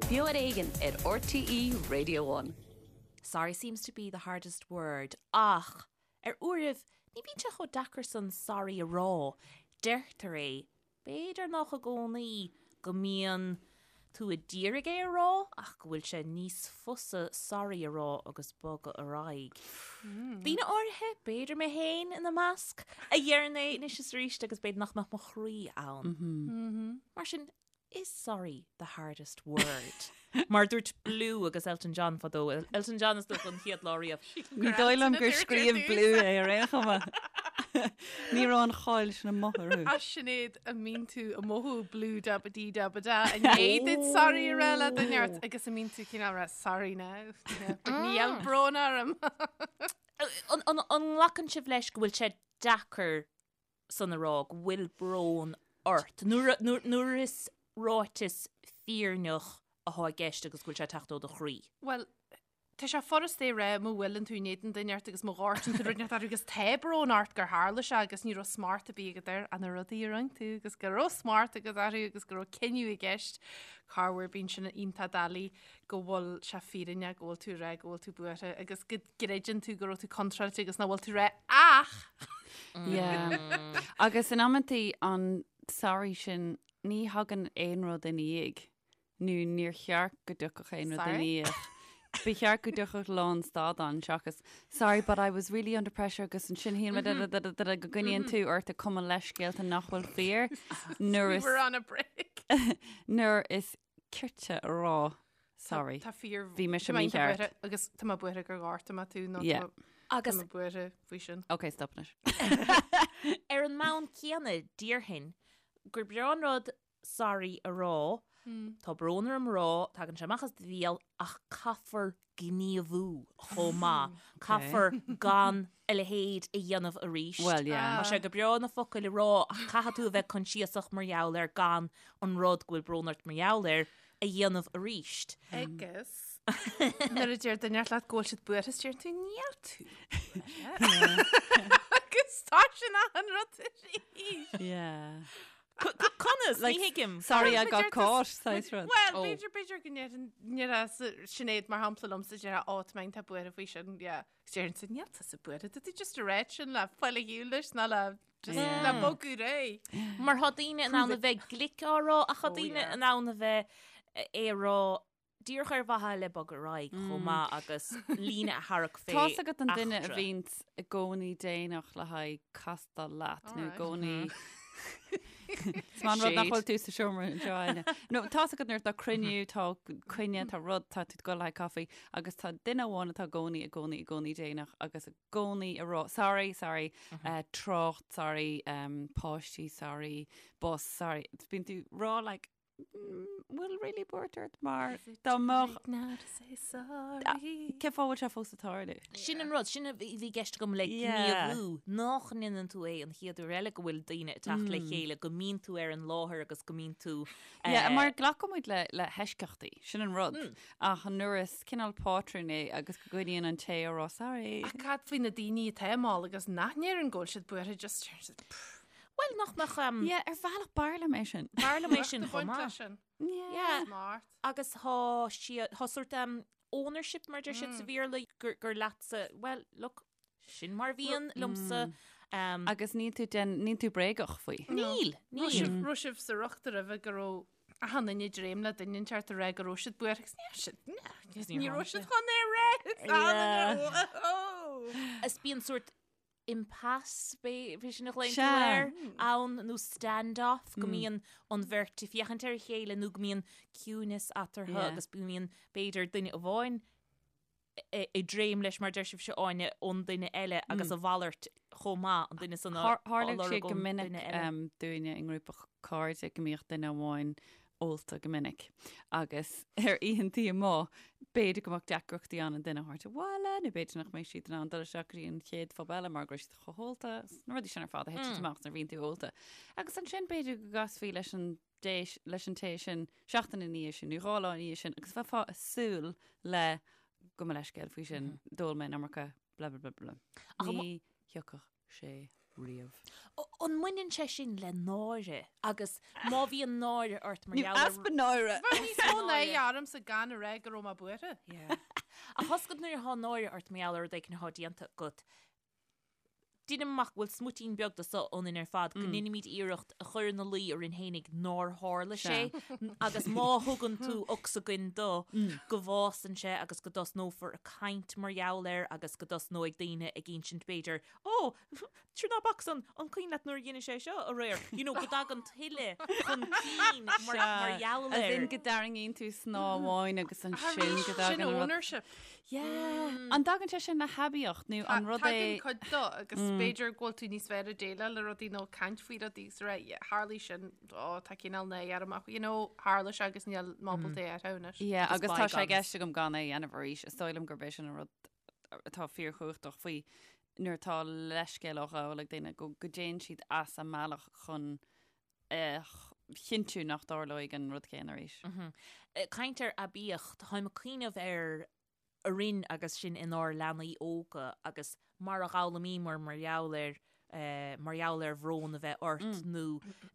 Beo ar Éigean ar RTÉ Radio One. Sorry seems to be the hardest word ach ar uairibh ní bhíonn sé chomh deacair san sorry a rá. Deirtear é B'fhéidir nach i gcónaí go mbíonn tú a d'iarraidh é a rá ach go bhfuil sé níos fusa sorry a rá agus bogadh ar aghaidh. Daoine áirithe, b'fhéidir mé féin ina measc, a dheireann é anois is arís agus b'fhéidir nach mbeadh mo chroí ann. Mar sin, is sorry the hardest word? Mar dúirt Blue agus Elton John fadó, Elton John is dócha an chéad lá riamh. Ní dóigh liom gur scríobh Blue é ar aon chuma. Ní raibh an cháil sin amuigh orthu. A Sinéad an mbíonn tú ag mothú blue da ba dee da ba da i ndiaidh duit sorry a rá le duine ort agus an mbíonn tú cineál rá sorry now. But níl brón orm. An nglacann sibh leis go bhfuil sé deacair san a rá go bhfuil brón ort nuair is ráiteas fírinneach atá i gceist agus go bhfuil sé ag teacht ó do chroí. Bhuel, tá sé furast é a rá má bhuaileann tú in éadan duine ort agus má ghortaíonn tú rud inteacht orthu agus tá brón ort gur tharla sé agus ní raibh smacht ar bith agat air ach na rudaí a rinne tú agus go raibh smacht agat orthu agus go raibh cinneadh i gceist corruair bíonn sin iontach doiligh go bhfuil sé fírinneach go bhfuil tú ag rá go bhfuil tú buartha agus go gcreideann tú go raibh tú contráilte agus nach bhfuil tú rá ach! Yeah. Agus in amantaí an sorry sin ní thagann aon rud ina dhiaidh nó níor cheart go dtiocfadh aon rud ina Sorry? dhiaidh. Ba cheart go dtiocfadh lánstad ann seachas sorry but I was really under pressure agus ansin shíl mé da da da da da da go gcoinníonn tú ort ag cumadh leithscéalta nach bhfuil fíor nuair We is were on a break. nuair is cirte a rá sorry. Tá fíor Bhí mise tá mé iontach mícheart. buartha agus tá mé buartha gur ghortaigh mé tú nó Yeah. tá mé- Agus- tá mé buartha faoi sin. Ok, stop anois. Ar an mbonn céanna, déarfainn gur breá an rud sorry a rá, tá brón orm a rá, tagann sé amach as do bhéal ach caithfear gníomhú chomh maith. Caithfear gan a leithéid a dhéanamh arís. Well, yeah. Tá sé go breá na focail a rá ach caithfidh tú a bheith coinsiasach mar gheall air gan an rud go bhfuil brón ort mar gheall air a dhéanamh arís. Agus nuair a deir duine leat go bhfuil siad buartha is deir tú níl tú buartha. Agus tá sin an rud arís. Yeah. Conas? Like, Ní thuigim. Sorry I Well, got b'fhéidir caught, saghas rud. Well, Oh. b'fhéidir b'fhéidir go ndéarfadh Sinéad mar shampla liomsa déarfadh ó tá mé iontach buartha faoi sin, yeah. Agus déarfainnse níl tusa buartha, tá tú just ag rá sin le fáil ar shiúl leis ná le just Yeah. le bogadh ar aghaidh. Mar tá daoine in ann a bheith glic á rá ach tá Oh, daoine yeah. in ann a bheith é a rá díreach ar mhaithe le bogadh ar aghaidh chomh maith agus líne a tharrac fé Tá's agat an duine a eachtra. bhíonns i gcónaí déanach le haghaidh castáil leat nó i Alright. gcónaí Is maith an rud nach bhfuil tú sa seomra anseo Áine. No, tá's agat nuair atá cruinniú, tá coinne, tá rud, tá tú ag dul le haghaidh caife agus tá duine amháin atá i gcónaí, i gcónaí, i gcónaí déanach agus i gcónaí ag rá, sorry, sorry, eh, trácht, sorry, um, páistí, sorry, bus, sorry. Bíonn tú ag rá like, bhfuil really buairt ort mar dá mbeadh Now to say sorry. Cén fáth bhfuil sé fós ag tarlú? Sin an rud, sin a bhí i gceist agam le Yeah. gníomhú, nach ndéanann tú é an chéad uair eile go bhfuil daoine ag teacht le chéile, go mbíonn tú ar an láthair agus go mbíonn tú Yeah, mar glacann muid le le heisceachtaí, sin an rud. Ach nuair is cineál pátrún é agus go gcoinníonn an té a rá sorry. Ach cad faoi na daoine atá mall agus nach ndeireann go bhfuil siad buartha just Bhuel, nach mbeadh... Um, Yeah, ar bhealach b'fhearr liom é sin. B'fhearr liom é sin chomh maith. sin. Yeah. Smart. Agus tá siad, tá sort um, ownership mar deir siad sa Bhéarla gur, gur leatsa, well, look, sin mar bhíonn liomsa. Um, Agus níl tú den, níl tú bréagach faoi. níl, Raibh níl. sibh- raibh sibh sa riocht roimhe go raibh achan duine ag dréim le duine inteacht ag rá go raibh siad buartha agus ní raibh siad, ní raibh siad chun é a rá. Yeah. Is bíonn sort impasse, b'é sin a ghlaonn tú Sea. air, ann nó stand-off, go mbíonn an bheirt ag féachaint ar a chéile nó go mbíonn ciúnas eatarthu Yeah. agus go mbíonn b'fhéidir duine amháin ag dréim leis mar deir sibhse Áine ón duine eile agus a mhalairt chomh maith an duine san á Tharla sé lorg go ón minic duine eile. um, dúinne i ngrúpa cairde go mbíodh duine amháin ólta go minic agus ar oícheantaí amuigh b'fhéidir go mbeadh deacrachtaí ann an duine a thabhairt abhaile nó b'fhéidir nach mbeadh siad in ann dul isteach go dtí an chéad phub eile mar go raibh siad chomh hólta, na rudaí sin ar fad a thiteann amach nuair a bhíonn tú ólta. Agus ansin b'fhéidir go gcasfaí leis an dé leis an té sin seachtain ina dhiaidh sin nó 2 lá ina dhiaidh sin agus bheifeá ag súil le gabh mo leithscéal faoi sin, d'ól mé an iomarca, blah blah blah blah. Ach Ní thiocfadh sé. riamh. An mbaineann sé sin le náire agus má bhíonn náire ort mar gheall ar. Easpa náire! Bheadh níos mó náire ormsa gan a rá go raibh mé buartha. Ach tá a fhios agat nuair atá náire ort mar gheall ar rud éicint atá déanta agat, Deinim amach go bhfuil smuitín beag de so ionainn ar fad, go ndeinimid iarracht a chur ina luí orainn fhéinig nár tharla sé, agus má thugann tú ocsaigin dó, go bhfásann sé agus go dtosnófar ag caint mar gheall air agus go dtosnóidh daoine ag insint b'fhéidir, Ó, sure ná bac san, an cuimhin leat nuair a dhein sé seo aréir? You know, go dtagann tuilleadh chun cinn mar gheall air. As in go dtarraingíonn tú snáth amháin agus ansin go dtagann Sin an rud. ownership. Yeah. An dtagann sé sin le haibíocht nó an rud é. Tagann cuid dó agus b'fhéidir go bhfuil tú níos fearr ag déileáil le rudaí nó caint faoi rudaí agus rá, yeah, tharlaigh sin, ó, tá cineál náire orm ach, you know, tharla sé agus níl mé ábalta é a athrú anois. Yeah, Agus agus tá sé i bygones. gceist agam gan é a dhéanamh arís. Is dóigh liom gurb é sin an rud atá fíorchumhachtach faoi nuair atá leithscéal á ghabháil ag daoine go go dtéann siad as a mbealach chun a chinntiú nach dtarlóidh an rud céanna arís. Caint ar aibíocht, táim ag cuimhneamh ar orainn agus sinn inár leanaí óga agus mar a d'fhoghlaimíomar mar gheall ar mar gheall ar bhrón a bheith ort nó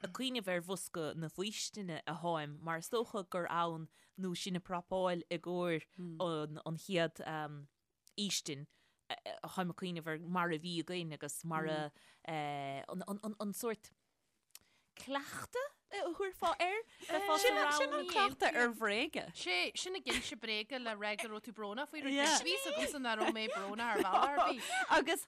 ag cuimhneamh ar bhosca na faoistine a tháim mar is dócha gur ann nó sinn ag prapáil i gcomhair an chéad fhaoistin táim ag cuimhneamh ar mar a bhí againn agus mar a an sórt cleachtadh a thabharfá air? Bheifeá Sin sa sin an rang. cleachtadh ar bhréaga. Sé, sin ag inse bréaga le rá go raibh tú brónach faoi rud. Yeah. Bhí fhios agamsa nach raibh mé brónach ar bhealach ar bith. Agus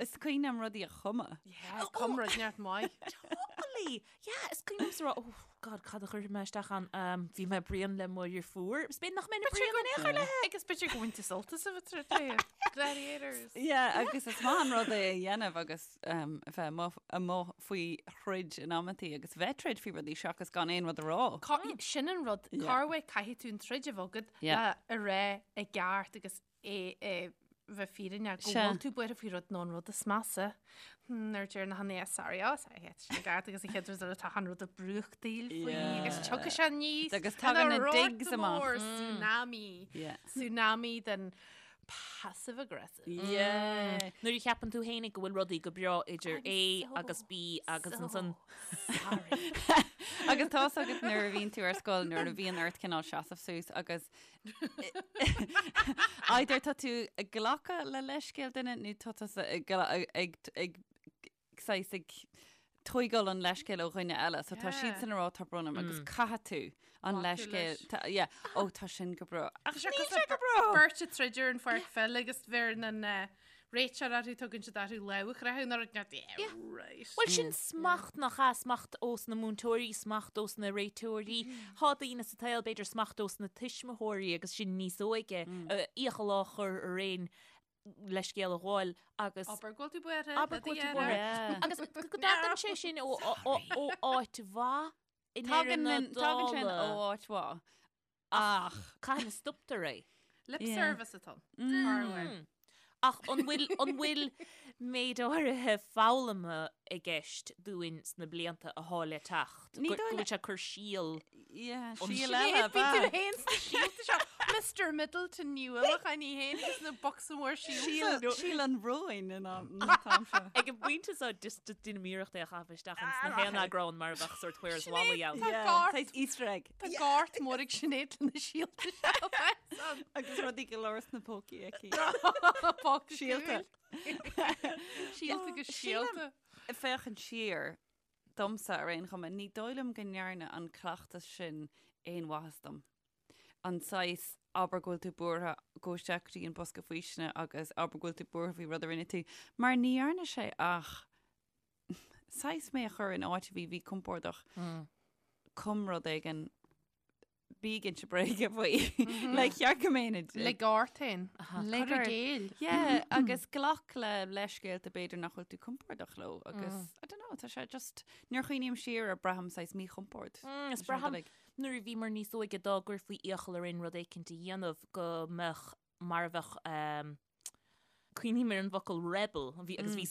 is cuimhin liom rudaí a chumadh. Yeah, cum rud neart maith. Totally! Yeah, is cuimhin liomsa rá, oh God, cad a chuirfidh mé isteach ann? Um, bhí mé bréan le mo dheirfiúr. Is b'fhéidir nach mbeinn bréan in aon chor léi. Agus b'fhéidir go bhain tú sult as a bheith tar éis Gladiators. Yeah, agus is maith an rud é a dhéanamh agus um, a bheith amuigh, amuigh faoi throid in amantaí agus bheith troid faoi rudaí seachas gan aon rud a rá. Cá- Sin an rud, Yeah. corruair caithfidh tú an troid a bheith agat Yeah. le a rá i gceart agus é é bheith fírinneach go Sea. bhfuil tú buartha faoi rud nó an rud is measa. Hmm, Nuair deir na hAnna sorry, oh, sorry, yeah, sin i gceart agus an chéad rud eile tá an rud ag brúchtaíl faoi Yeah. agus tiocfaidh sé aníos Agus tagann ina na rort digs amach. mór, Tsunami. Yeah. Tsunami den passive aggressive. Yeah. Nuair a cheapann tú fhéinig go bhfuil rudaí go breá idir A agus B agus ansan Sorry. Agus tá's agat nuair a bhíonn tú ar scoil nuair a bhíonn ort cineál seasamh suas agus either tá tú ag glacadh le leithscéal duine nó tá tusa ag gla- ag ag saghas ag tóigeáil an leithscéal ó dhuine eile. So tá Yeah. siadsan ag rá tá brón orm agus caithfidh tú an Glacadh leithscéal leis. tá- yeah, ó tá sin go breá. Ach Tá sé níl cosúil sé go breá. Beirt ag troid ar an pháirc pheile agus bheireann an eh, réiteoir orthu tugann siad orthu lámh a chroitheadh nuair a yeah, right. Bhuel sin smacht nach ea, smacht ós na múinteoirí, smacht ós na réiteoirí. Tá daoine sa tsaol b'fhéidir smacht ós na tuismitheoirí agus sinn níos óige, iachall á chur orainn leithscéal a ghabháil agus Abair go bhfuil tú buartha. Abair go bhfuil tú buartha. Agus go dtagann sé sin ó ó áit mhaith i ndeireadh Tagann na an- tagann sin ó dála. áit mhaith. Ach. Cathain a stoptar é? Lip Yeah. service atá ann. Corruair. Ach an bhfuil an bhfuil méid áirithe foghlama i gceist dúinn sna blianta athá le teacht? Ní Go dóigh go bhfuil sé ag cur síol Yeah, An síol síol eile, Bhí tú ba. féin sna síolta seo. Mr Middleton Ní Uallacháin í féin agus na bocsa mór síolta. Síol síol an bhróin in am an t-am seo. Ag an bpointe seo just deinim iarracht é a chaitheamh isteach ins na haon eagrán mar a bheadh sórt Where's Wally ann. Tá gort. Saghas Easter egg. Tá gort mór ag Sinéad lena síolta seo. Agus rudaí go leor sna pócaí aici. Póca Síolta. Síolta agus síolta. Féachaint siar domsa ar aon chuma, ní dóigh liom go ndearna an cleachtas sin aon mhaitheas dom. An saghas abair go bhfuil tú buartha, gabh isteach go dtí an bosca faoistine agus abair go bhfuil tú buartha faoi rud a rinne tú, mar ní dhearna sé ach saghas mé a chur in áit a bhí mhíchompordach. Cum rud éigin bí ag inse bréige faoi. Le cheart go mbeinn ag. Lig ort féin. Lig Cur i ort. gcéill. Yeah, agus glac le leithscéalta b'fhéidir nach bhfuil tú compordach leo agus I don't know, tá sé just nuair a chuimhním siar air braithim saghas míchompord. Is leis an braithim uilig. nuair a bhíomar níos óige dá gcuirfí iachall orainn rud éicint a dhéanamh go mbeadh mar a bheadh ehm, Cuimhním ar an bhfocal rebel, bhí agus bhí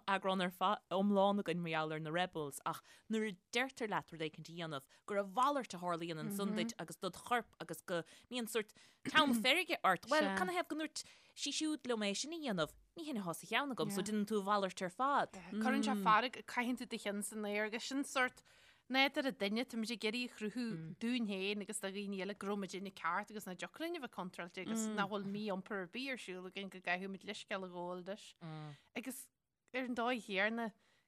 eagrán ar fad iomlán againn mar gheall ar na rebels, ach nuair a deirtear leat rud éicint a dhéanamh, gur a mhalairt a tharlaíonn ansan duit agus dod chorp agus go mbíonn sórt teann feirge ort. Bhuel, canathaobh go ndúirt sí siúd liom é sin a dhéanamh? Ní hin atá sa cheann agam, so déanann tú a mhalairt ar fad. Cuireann sé fearg, caitheann tú do cheann san aer agus sin sórt nádúr an duine, táimid ag iarraidh a chruthú dúinn féin agus do dhaoine eile go raibh muidinne ceart agus nach dtiocfadh linn a bheith contráilte agus nach bhfuil mí-iompar ar bith ar siúl againn go gcaithfidh muid leithscéal a ghabháil leis. Agus ar an dóigh chéanna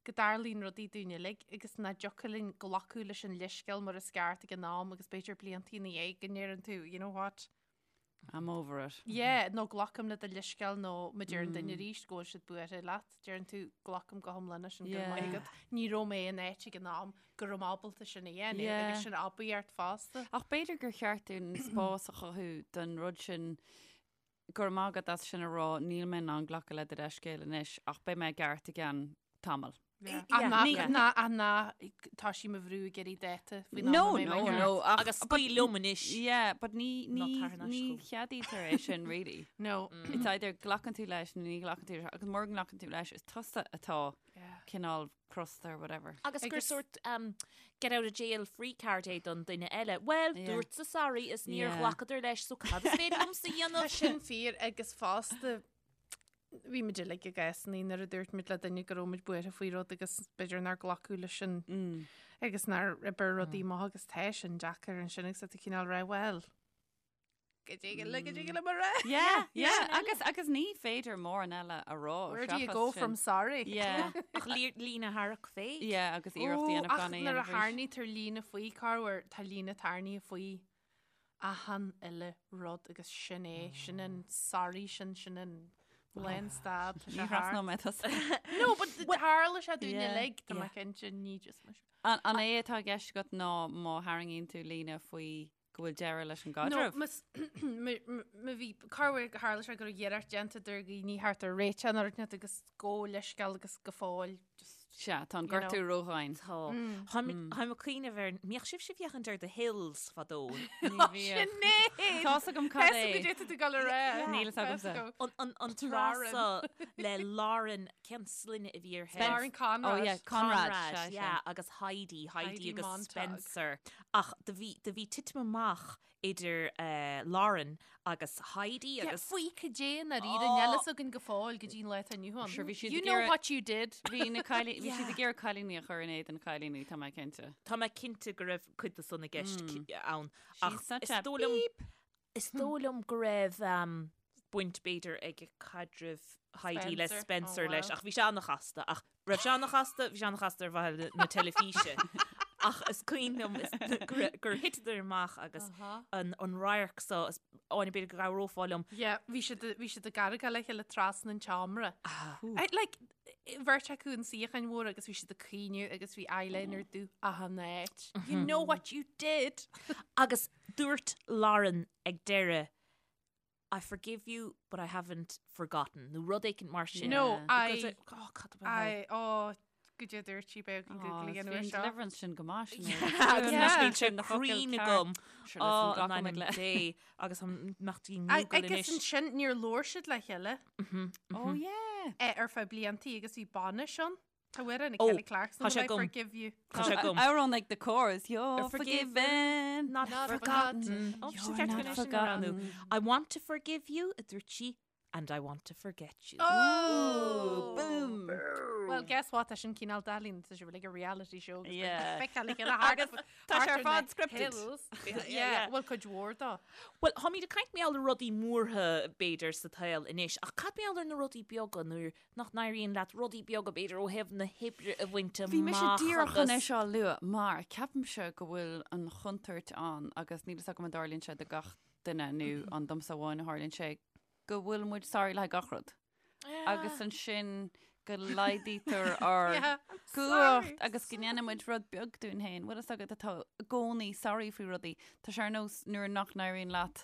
go dtarlaíonn rudaí dúinn uilig agus nach dtiocfadh linn glacadh leis an leithscéal mar is ceart ag an am agus b'fhéidir blianta ina dhiaidh go ndeireann tú, you know what? I'm over it. Yeah, nó glacaim le do leithscéal nó má deir an duine arís go bhfuil siad buartha leat, deireann tú glacaim go hiomlán leis sin go raibh maith agat. Ní raibh mé in áit ag an am go raibh mé ábalta sin a dhéanamh agus sin obair ort fosta. Ach b'fhéidir gur cheart dúinn spás a chothú don rud sin go raibh maith agat as sin a rá, níl mé in ann glacadh le do leithscéal anois ach beidh mé i gceart i gceann tamaill. Ach ná tá sí mo bhrú ag iarraidh dáta faoin am a mbeidh mé ceart. No, no, ach Agus scaoil liom anois. Yeah, but ní ní ní cheadaítear é sin really. No. It's either glacann tú leis nó ní ghlacann tú leis agus mura nglacann tú leis is tusa atá cineál crosta or whatever. Agus gur sort um, get out of jail free card é don duine eile. Well, dúrtsa sorry is níor ghlacadar leis, so cad is féidir liomsa a dhéanamh? Tá sin fíor agus fosta Bhí muid uilig i gcásanna nuair a dúirt muid le duine go raibh muid buartha faoi rud agus b'fhéidir nár glacadh leis sin agus nár oibir rudaí amach agus tá sin deacair ansin agus tá tú cineál rá bhuel go dtig le go dtig le mar rá. Yeah, yeah, agus agus ní féidir mórán eile a rá. Where do you go from sorry? Yeah. Ach líne a tharrac fé. Yeah, agus iarracht a dhéanamh gan é a dhéanamh arís. Nuair a tharraingítear líne faoi corruair tá líne tarraingthe faoi achan uile rud agus sin é, sin an sorry sin, sin an lánstad. Ní thrasnóidh mé tusa. No, but tharla sé dúinn uilig, tá mé cinnte, ní just mise. An é atá i gceist agat ná má tharraingíonn tú líne faoi go bhfuil deireadh leis an gcaidreamh? No, má bhí, corruair tharla sé go raibh iarracht déanta idir dhaoine thart ar réiteach nó rud agus gabh leithscéal agus go fóill just Sea, tá an gortú ródhomhain. Tá. Táim ag cuimhneamh ar, mbíodh sibhse ag féachaint ar The Hills fadó? Ní bhíodh. Sinéad! Tá's agam cad é. Tá tú ag dul a rá. Níl fhios agamsa. An tráth so le Lauren, cén sloinne a bhí uirthi? Lauren Conrad. Oh yeah, Conrad. Conrad, yeah, agus Heidi, Heidi agus Spencer. Ach do bhí titim amach idir Lauren agus Heidi agus. Faoi cad é i ndáiríre, níl fhios againn go fóill go dtí an lá atá inniu ann. Sure, bhí siad You ag know iarraidh- what you did. Bhí na cailíní, bhí siad ag iarraidh cailíní a chur in éadan cailíní, tá mé cinnte. Tá mé cinnte go raibh cuid de san i gceist ann. She's Ach such is a dóigh liom, beep. is dóigh liom go raibh baint b'fhéidir ag caidreamh Heidi le Spencer. Spencer Oh, leis, wow. ach bhí sé an-chasta, ach raibh sé an-chasta, bhí sé an-chasta ar mhaithe le na teilifíse. Ach is cuimhin liom is gur gur thiteadar amach agus an an radharc so is Áine b'fhéidir go gcabhrófá liom. Yeah, bhí siad bhí siad ag argáil le chéile trasna an tseomra. I, like, bheirt acu in suíocháin mhóra agus bhí siad ag caoineadh agus bhí eyeliner dubh achan áit. You know what you did! Agus dúirt Lauren ag deireadh I forgive you but I haven't forgotten nó rud éicint mar sin. No, I, Oh, cad ab ea? I, oh, go dtí dúirt sí beag an Google again uair seo. Deliverance sin go maith sin. Agus níl sé cruinn agam. Oh, Ó, in ainm Dé agus an mbeadh tí I- Google Agus anois. ansin níor labhair siad le chéile Oh yeah. eh, ar feadh bliantaí agus bhí bainis ann. Tá amhrán ag Oh, Kelly Clarkson, tá sé Will I agam. forgive you. Tá sé agam. Amhrán ag The Corrs, You're Forgiven, forgiven. Not Not forgotten. forgotten. Oh, You're sin ceart not go sin a roghnú. forgotten. I want to forgive you, a dúirt sí, and I want to forget you. Oh! Boom. Well, guess what? Tá sin cineál doiligh, tá sé like a reality show. agus Yeah. beidh feiceáil le chéile thart- Agus tá sé thart ar ar fad na scripted. hills. Yeah, well, cuid mhór dó. Well, táimid ag caint mar gheall ar rudaí mórtha b'fhéidir sa tsaol anois, ach cad mar gheall ar na rudaí beaga nuair nach n-éiríonn leat rudaí beaga b'fhéidir ó thaobh na hoibre a bhaint amach Bhí mise díreach chun é agus. seo a lua mar ceapaimse go bhfuil an chontúirt ann agus níl fhios agam an dtarlaíonn sé do gach duine nó an domsa amháin a tharlaíonn sé go bhfuil muid sorry le gach rud agus ansin go laghdaítear ár Yeah, I'm gcumhacht sorry. agus go ndéanann muid rud beag dúinn féin. Bhfuil fhios agat atá i gcónaí sorry faoi rudaí. Tá sé ar nós nuair nach n-éiríonn leat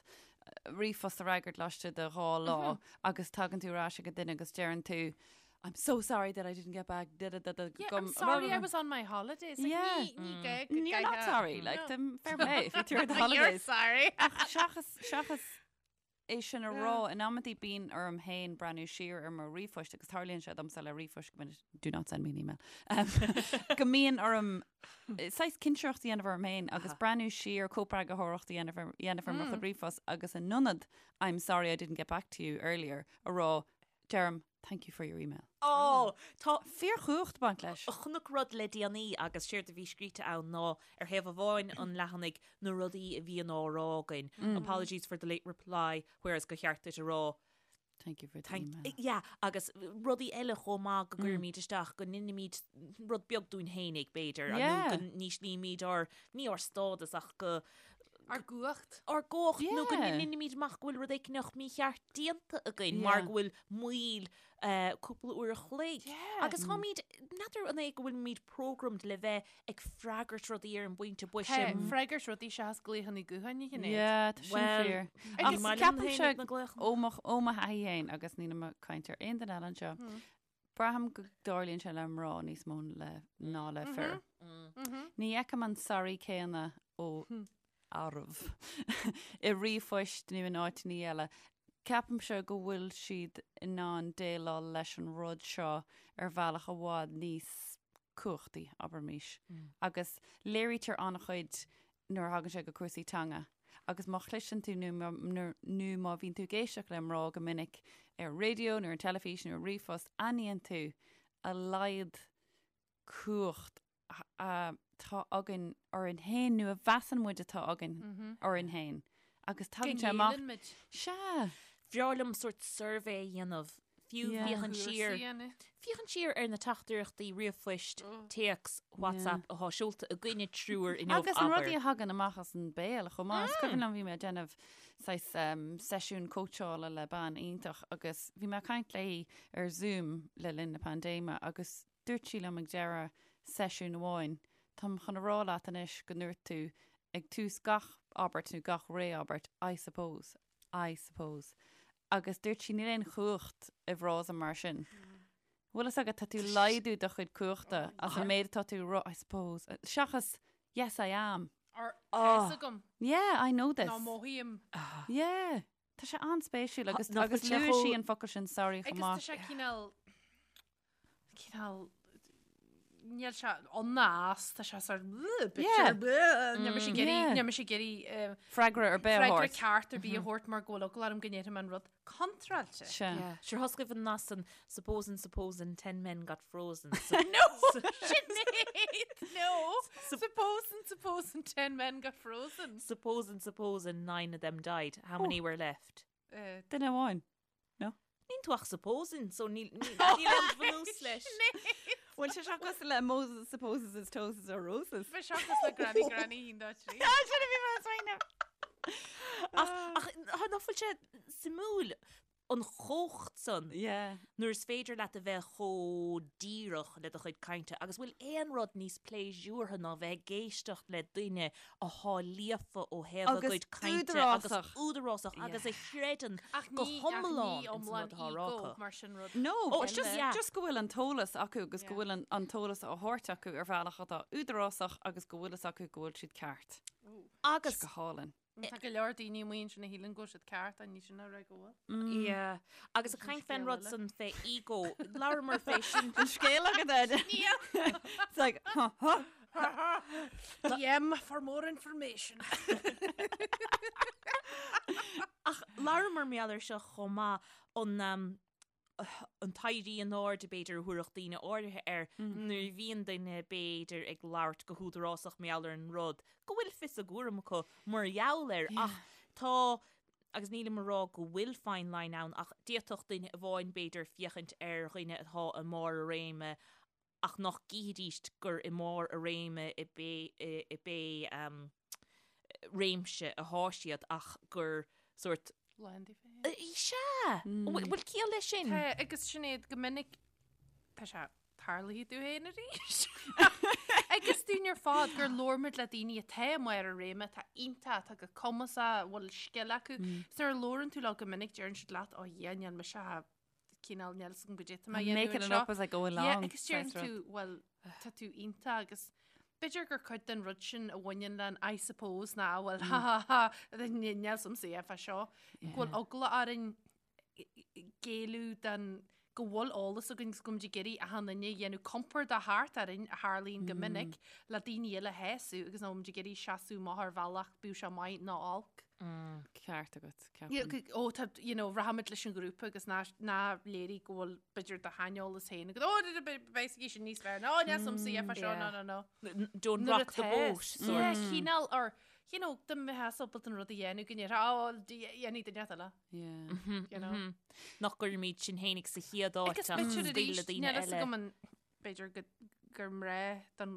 ríomhphost a fhreagairt laistigh de 2 lá agus tagann tú ar ais ag an duine agus deireann tú I'm so sorry that I didn't get back da da da da Yeah, I'm sorry I was on my holidays. Like, Yeah. ní, ní gá go You're not gcaithfeá- sorry, like, No. them fair play if you're the You're holidays. sorry. Ach seachas, seachas é sin a rá. In amantaí bíonn orm féin breathnú siar ar mo ríomhphoist agus tarlaíonn sé domsa le ríomhphoist go minic, do not send me an email, go mbíonn orm saghas cinsireacht a dhéanamh orm féin agus breathnú siar, cóipeagarthóireacht a dhéanamh ar dhéanamh ar mo chuid ríomhphost agus in ionad I'm sorry I didn't get back to you earlier a rá, deirim thank you for your email. Ó, tá fíorchumhacht ag baint leis. Chonac rud le déanaí agus séard a bhí scríte ann ná ar thaobh amháin an leathanaigh na rudaí a bhíonn á rá againn, apologies for the late reply, whereas gur cheart duit a rá Thank you for the email. Yeah, agus rudaí eile chomh maith go gcuirimid isteach, go n-inimid rud beag dúinn fhéinig, b'fhéidir, nó go n-íslímid ár, ní ár stádas ach go... Ár gcumhacht. Ár gcumhacht, nó go n-inimid amach go bhfuil rud éicneach mícheart déanta againn mar go bhfuil moill cúpla uair a chloig. Agus táimid, n'fheadar an é go bhfuilimid programmed le bheith ag freagairt rudaí ar an bpointe boise. Tá, freagairt rudaí seachas glaochanna gutháin a Shinéad. Yeah, tá sin fíor. Agus ceapaimse ó mo ó mo thaithí féin agus nílim ag caint ar aon duine eile anseo, braithim go dtarlaíonn sé le mná níos mó le ná le fir. Ní fheicim an sorry céanna ó fhearaibh i ríomhphoist nó in áiteanna eile. Ceapaimse go bhfuil siad in ann déileáil leis an rud seo ar bhealach i bhfad níos cumhachtaí, abraimis. Agus léirítear an-chuid nuair a thagann sé go cúrsaí teanga. Agus má chloiseann tú nó nó má bhíonn tú ag éisteacht le mná go minic ar an raidió nó ar an teilifís nó ar ríomhphost, aithníonn tú a laghad cumhacht atá againn orainn féin nó a mheasann muid atá againn orainn féin agus tagann sé amach. Go ngéilleann muid. Sea. Bhreá liom sórt suirbhé a dhéanamh, fiú féachaint siar, féachaint siar ar na teachtaireachtaí ríomhphoist, téacs, WhatsApp atá seolta againne triúr inniu, Agus an rudaí a thagann amach as an béal chomh maith. Is cuimhin liom bhí mé ag déanamh saghas seisiún cóitseála le bean iontach agus bhí mé ag caint léi ar Zoom le linn na paindéime agus Dúirt sí liom ag deireadh seisiún amháin, Táim chun a rá leat anois go ndúirt tú ag tús gach abairt nó gach ré-abairt, I suppose, I suppose. Agus dúirt sí, níl aon chumhacht i bhfrása mar sin. Bhfuil fhios agat, tá tú ag laghdú do chuid cumhachta as an méid atá tú a rá, I suppose, seachas yes I am. Or tá fhios agam. Yeah, I know this. Nó mothaím. Yeah. Tá sé an-spéisiúil agus agus luaigh sí an focal sin sorry chomh maith. Agus tá sé cineál cineál níl sé ann ná as, tá sé sort níl mise ag iarraidh níl mise ag iarraidh freagra ar bith a thabhairt. Freagra ceart ar bith a thabhairt mar go bhfuil eagla orm go ndéarfaidh mé an rud contráilte. Sea. Sure thoscaibh an nas an supposing supposing ten men got frozen. No! Sinéad! No! Supposing supposing ten men got frozen. Supposing supposing nine of them died. How many were left? Duine amháin. No? Níl tú ach supposing, so níl aon bhunús leis. Bhfuil sé seo cosúil le Moses supposes his toes are roses? Bhí seo cosúil le Granny Granny haon dá trí. Sin a bhí mé ag smaoineamh. Ach ach nach bhfuil sé suimiúil an chumhacht san Yeah. nuair is féidir leat a bheith chomh díreach le do chuid cainte agus bhfuil aon rud níos pléisiúrtha ná bheith ag éisteacht le duine athá líofa ó thaobh a Agus gcuid cainte agus údarásach. údarásach agus a chreideann Ach go ní, ach hiomlán ní ins an iomlán rud atá á rá ego acu. mar sin rud. No, Oh, but just, yeah. just go bhfuil an t-eolas acu agus go Yeah. bhfuil an, an t-eolas á thabhairt acu ar bhealach atá údarásach agus go bhfuil fhios acu go bhfuil siad ceart. Agus Go hálainn. Tá go leor daoine amuigh ansin a shíleann go bhfuil siad ceart ach ní sin a rá go bhfuil. Yeah. Agus ag caint fén rud san fé ego, labhramar fé sin. An scéal agat, Ed? It's like, huh, huh. DM for more information. Ach labhramar mar gheall air seo chomh maith an um, an t-éirí in airde b'fhéidir a thabharfadh daoine áirithe air nuair a bhíonn duine b'fhéidir ag labhairt go húdarásach mar gheall ar an rud go bhfuil fios a gcúraim acu mar gheall air ach tá agus nílim ag rá go bhfuil fine line ann ach d'fhéadfadh duine amháin b'fhéidir féachaint ar dhuine atá i mbarr a réime ach nach gcífidís gur i mbarr a réime i pé réimse athá siad ach gur sórt. Lán díobh féin. Sea! Bhfuil ciall leis sin? Tá, agus Sinéad, go minic tá sé tarlaithe domh féin arís. Agus dúinn ar fad gur labhair muid le daoine atá i mbarr a réime, atá iontach, atá go cumasach, a bhfuil scil acu. Is nuair a labhrann tú leo go minic deireann siad leat, oh yeah, níl mise cineál níl 'fhios agam goidé atá mé a dhéanamh Making it anseo. up as I go along. Yeah, agus deireann saghas rud. tú, well, tá tú iontach agus. B'fhéidir gur cuid den rud sin a bhaineann le an I suppose ná bhuel ha ha ha níl a fhios a'msa é fá seo go bhfuil eagla orainn géilleadh den go bhfuil eolas againn agus go bhfuilimid ag iarraidh achan duine a dhéanamh compordach thart orainn a tharlaíonn go minic le daoine eile a shásamh agus nach bhfuilimid ag iarraidh seasamh amach ar bhealach bíodh sé maith nó olc. Ceart agat, ceapaim. Ó tá, you know, rachaimid leis an ghrúpa agus ná ná léirigh go bhfuil b'fhéidir do shaineolas féin agat, ó beidh sé sin níos fearr, nó níl a fhios a'msa é fá seo, no, no, no. Don't rock the boat, sort. Yeah, cineál, or, you know, dá mbeifeá ábalta an rud a dhéanamh go ndéarfá, ó, dhéanfaidh duine eile. Yeah. You know. Nach gcuirimid sinn fhéinig sa chéad áit Agus ach b'fhéidir scaoileadh arís, daoine níl a fhios eile. agam an b'fhéidir go gur mná don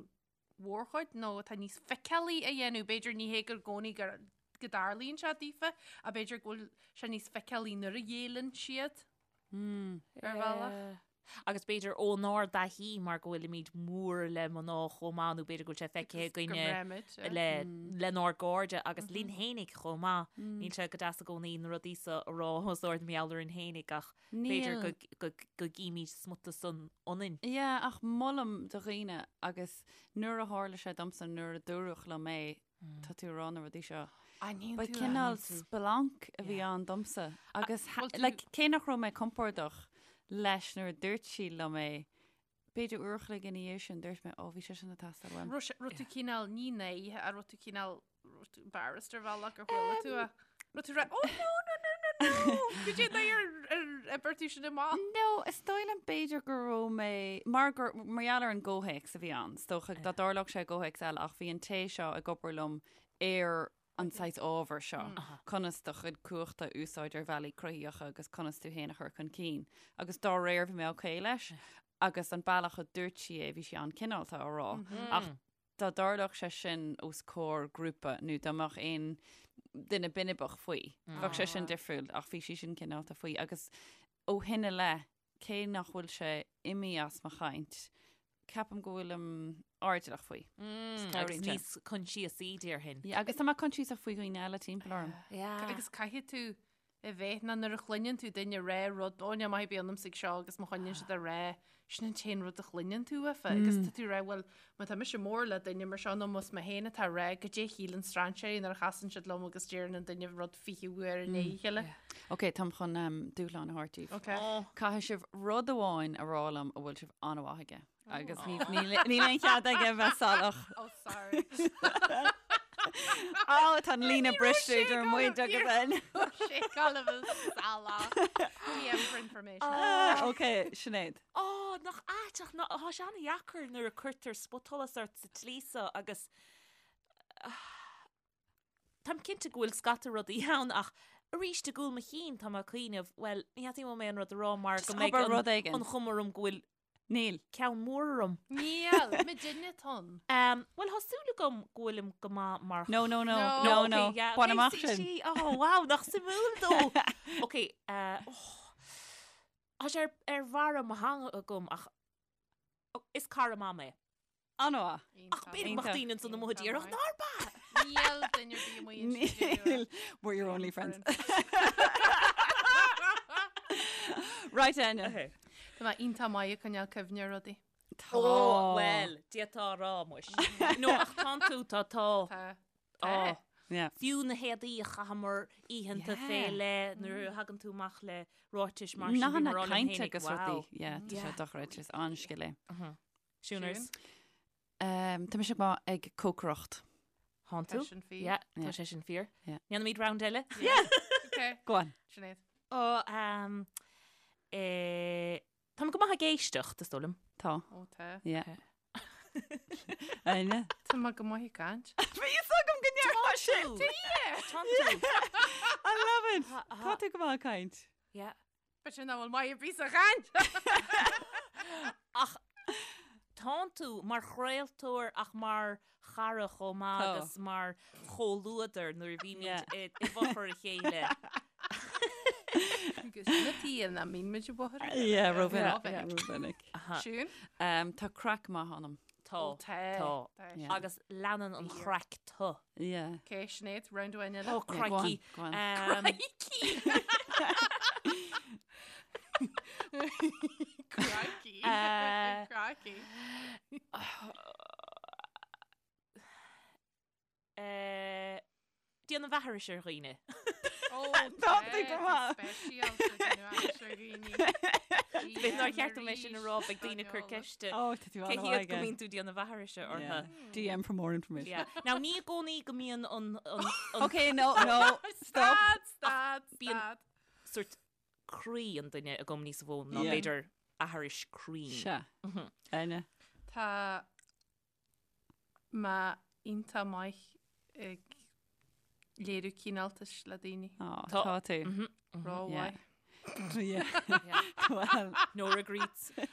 mhórchuid nó atá níos feiceálaí a dhéanamh, b'fhéidir ní hé gur i gcónaí gur go dtarlaíonn sé daofa, ach b'fhéidir go bhfuil sé níos feiceálaí nuair a ghéilleann siad ar bhealach. Yeah. Agus b'fhéidir ónár dtaithí mar go bhfuilimid mór le mná chomh maith nó b'fhéidir go bhfuil sé feicthe againne le lenár gcairde agus linn fhéinig chomh maith. Níl sé go deas i gcónaí na rudaí seo a rá os ard mar gheall orainn fhéinig ach b'fhéidir go go go gcímid smut san ionainn. Yeah, ach molaim do dhaoine agus nuair a tharla sé domsa nuair a dúradh liom é, tá tú ag rá na rudaí seo. Aithníonn Ba tú, cineál aithníonn tú. splanc a bhí ann domsa agus Bhfuil tú- like, cé nach raibh mé compordach leis nuair a dúirt sí liom é, b'fhéidir uair a chloig ina dhiaidh sin dúirt mé, ó bhí sé sin ag teastáil uaim. Raibh sé- raibh tú cineál ní náirithe ach raibh tú cineál raibh tú embarrassed ar bhealach ar chuala tú é. Raibh tú rá, oh no, no, no, no, no, cad é ar ar oibir tú sin amach? No, is dóigh liom b'fhéidir go raibh mé, mar gur, mar gheall ar an gcomhthéacs a bhí ann, is dócha dá dtarlódh sé i gcomhthéacs eile ach bhí an té seo ag obair liom ar an saghas ábhar seo, conas do chuid cumhachta a úsáid ar bhealaí cruthaitheacha agus conas tú féin a chur chun cinn. Agus dá réir bhí mé okay leis agus an bealach a dúirt sí é, bhí sí an-cineálta á rá. Ach dá dtarlódh sé sin os comhair grúpa nó dá mbeadh aon duine binibeach faoi, bheadh sé sin difriúil ach bhí sí sin cineálta faoi agus ó shin i leith, cé nach bhfuil sé imithe as mo chaint, ceapaim go bhfuilim airdeallach faoi. Agus níos coinsiasaí déarfainn. Yeah, agus tá mé coinsiasach faoi dhaoine eile timpeall orm. Yeah. Agus caithfidh tú a bheith ná nuair a chluineann tú duine rá rud, ó níl maith ar bith ionamsa ag seo agus má choinníonn siad a rá, sin an t-aon rud a chluineann tú uafa agus tá tú rá, bhuel, má tá mise mór le duine mar seo nó más mé féin atá rá, goidé a shíleann strainséirí nuair a chasann siad liom agus deireann an duine rud 20 uair i ndiaidh a chéile. Ok, táim chun um, dúshlán a thabhairt daoibh. Ok. Caithfidh sibh rud amháin a rá liom a bhfuil sibh an-mhaith aige. Agus ní- níl níl aon chead aige bheith salach. Oh, sorry. Á, tá an líne briste idir muid agus an. Sé galbh salach. DM for information. Ah, Ok, Sinéad. Ó, nach ait ach ná- tá sé an-dheacair nuair a cuirtear spotsholas ort sa tslí seo agus táim cinnte go bhfuil scata rudaí ann ach arís i gcúl mo chinn tá mé ag cuimhneamh, bhuel, ní theastaíonn uaim aon rud a rá mar Just go mbeidh abair an- rud éigin. an chuma orm go bhfuil Níl. Ceann mór orm. Níl, muidinne tinn. Bhuel, tá súil agam go bhfuilim go maith mar. No, no, no, No. no, no. Okay, yeah, Bain okay, amach sí, sin. sí. Oh, wow, nach suimiúil dó. Ok, eh, oh. Tá sé ar, ar bharra mo theanga agam ach oh, is cara maith mé. An-mhaith. Ach b'fhéidir go mbeadh daoine ansan amuigh a déarfadh nár b'ea. Níl duine ar bith amuigh ansin. Níl. We're your only friends. Right, Enya. Tá mé iontach maith ag coinneáil cuimhne ar rudaí. Tá. Ó, bhuel, d'fhéadfá a rá muis. No, ach tánn tú, tá, tá. Tá. Tá. Yeah. Fiú na héadaí a chaitheamar oícheanta Yeah. fé leith nuair a thagann tú amach le ráitis mar sin, Nathanna bhí mé ag rá liom cainte féinig, agus wow. rudaí. Yeah, tá sé Yeah. dochreidte, is an-scil é. Siúners. Um, tá mise go maith ag cócaireacht. Tánn tú? Tá sin fíor. Yeah, tá Yeah. sé sin fíor. Yeah. Déanfaimid round eile? Yeah. Okay. Go on. Sinéad. Ó, um, eh, táim go maith ag éisteacht, is dóigh liom. Tá. Ó tá. Yeah. Áine. Tá mé go maith ag caint. Bhí fhios agam go ndéarfá sin. Tánn tú. I love it. Ha, ha. Tá tú go maith ag caint. Yeah. B'fhéidir nach bhfuil maith ar bith sa chaint. Ach tánn tú mar chraoltóir ach mar chara chomh maith Tá. agus mar chomhluadar nuair a bhímid Yeah. i i bhfochair a chéile. Agus na tí na mín muid i bhfochair a chéile. Yeah, rómhinic. Yeah. Yeah, rómhinic. Aha. Siún? Um, tá craic maith ionam. Tá. Ó, tá. Tá. Tá. Yeah. Agus leanann an Fíor. chraic tu. Yeah. Ok, Sinéad, round amháin eile. Ó, Yeah, go on, crikey. go on. Um, Crikey! Crikey. Uh, Crikey. Eh, déanamh aithris ar dhaoine. Ó, Tá tú go maith. Speisialta déanamh aithris ar dhaoine. B'fhéidir nár cheart dom é sin a rá, beidh daoine ag cur ceiste. Ó, tá tú Cé an-mhaith hiad go aige. mbíonn tú déanamh aithrise orthu. Yeah. DM for more information. Yeah. Now, ní i gcónaí go mbíonn an, an, an Okay, no, no, stop. Stad, stad, Bíonn- stad. sort croí an duine agam níos mó ná Yeah. b'fhéidir aithris cruinn. Sea. Áine. Tá mé iontach maith ag léiriú cineáltais le daoine. Ó, Tá- tá tú. Rómhaith. Yeah. Well, No regrets. No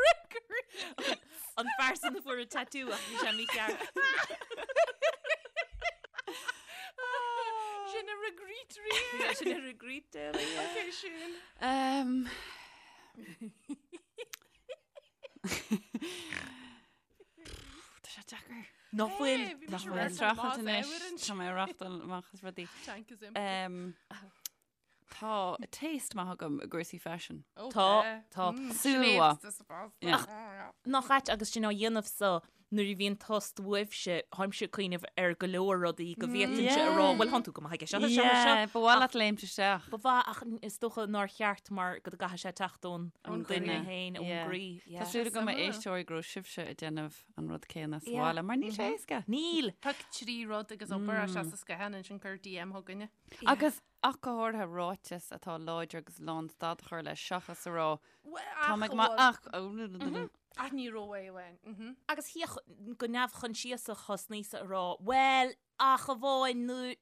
regrets! An fear san a fuair an tattoo ach bhí sé mícheart. Sin a regret rí. Sin a regret. Okay, sin. Um, Tá sé deacair. Nach bhfuil. Hey, bhí Nach mise bhfuil rachtáil streachailt amach anois. uair Tá mé ag reáchtáil amach as rudaí. Tank is empty. Um, tá taste maith agam i gcúrsaí faisin. Ó, Tá, tá. tá. Súil mhaith. Yeah. Nach ait agus sinn á dhéanamh so nuair a bhíonn tost uaibhse, tháimse ag cuimhneamh ar go leor rudaí go bhféadfainnse a rá, bhuel, thánn tú go maith aige seo, seo, seo. Yeah, ba mhaith leat léimt isteach. Ba mhaith ach is dócha nár cheart mar go gcaithfidh sé teacht ón Ón duine duine. féin, ón Yeah. gcroí. Tá Yeah. súil agam a Suimiúil. éisteoirí go raibh sibhse ag déanamh an rud céanna sa Yeah. bhaile, mar níl sé éasca. Níl! Pioc 3 rud agus abair é sa scáileán ansin cuir DM chugainne. Agus ach go háirithe ráiteas atá láidir agus lán stad a chur leis seachas a rá Tá mé go maith ach Ach ní raibh amháin. Mhm. Agus thiocfadh go neamhchoinsiasach thosnaíos-sa a rá, bhuel, ach amháin nuair.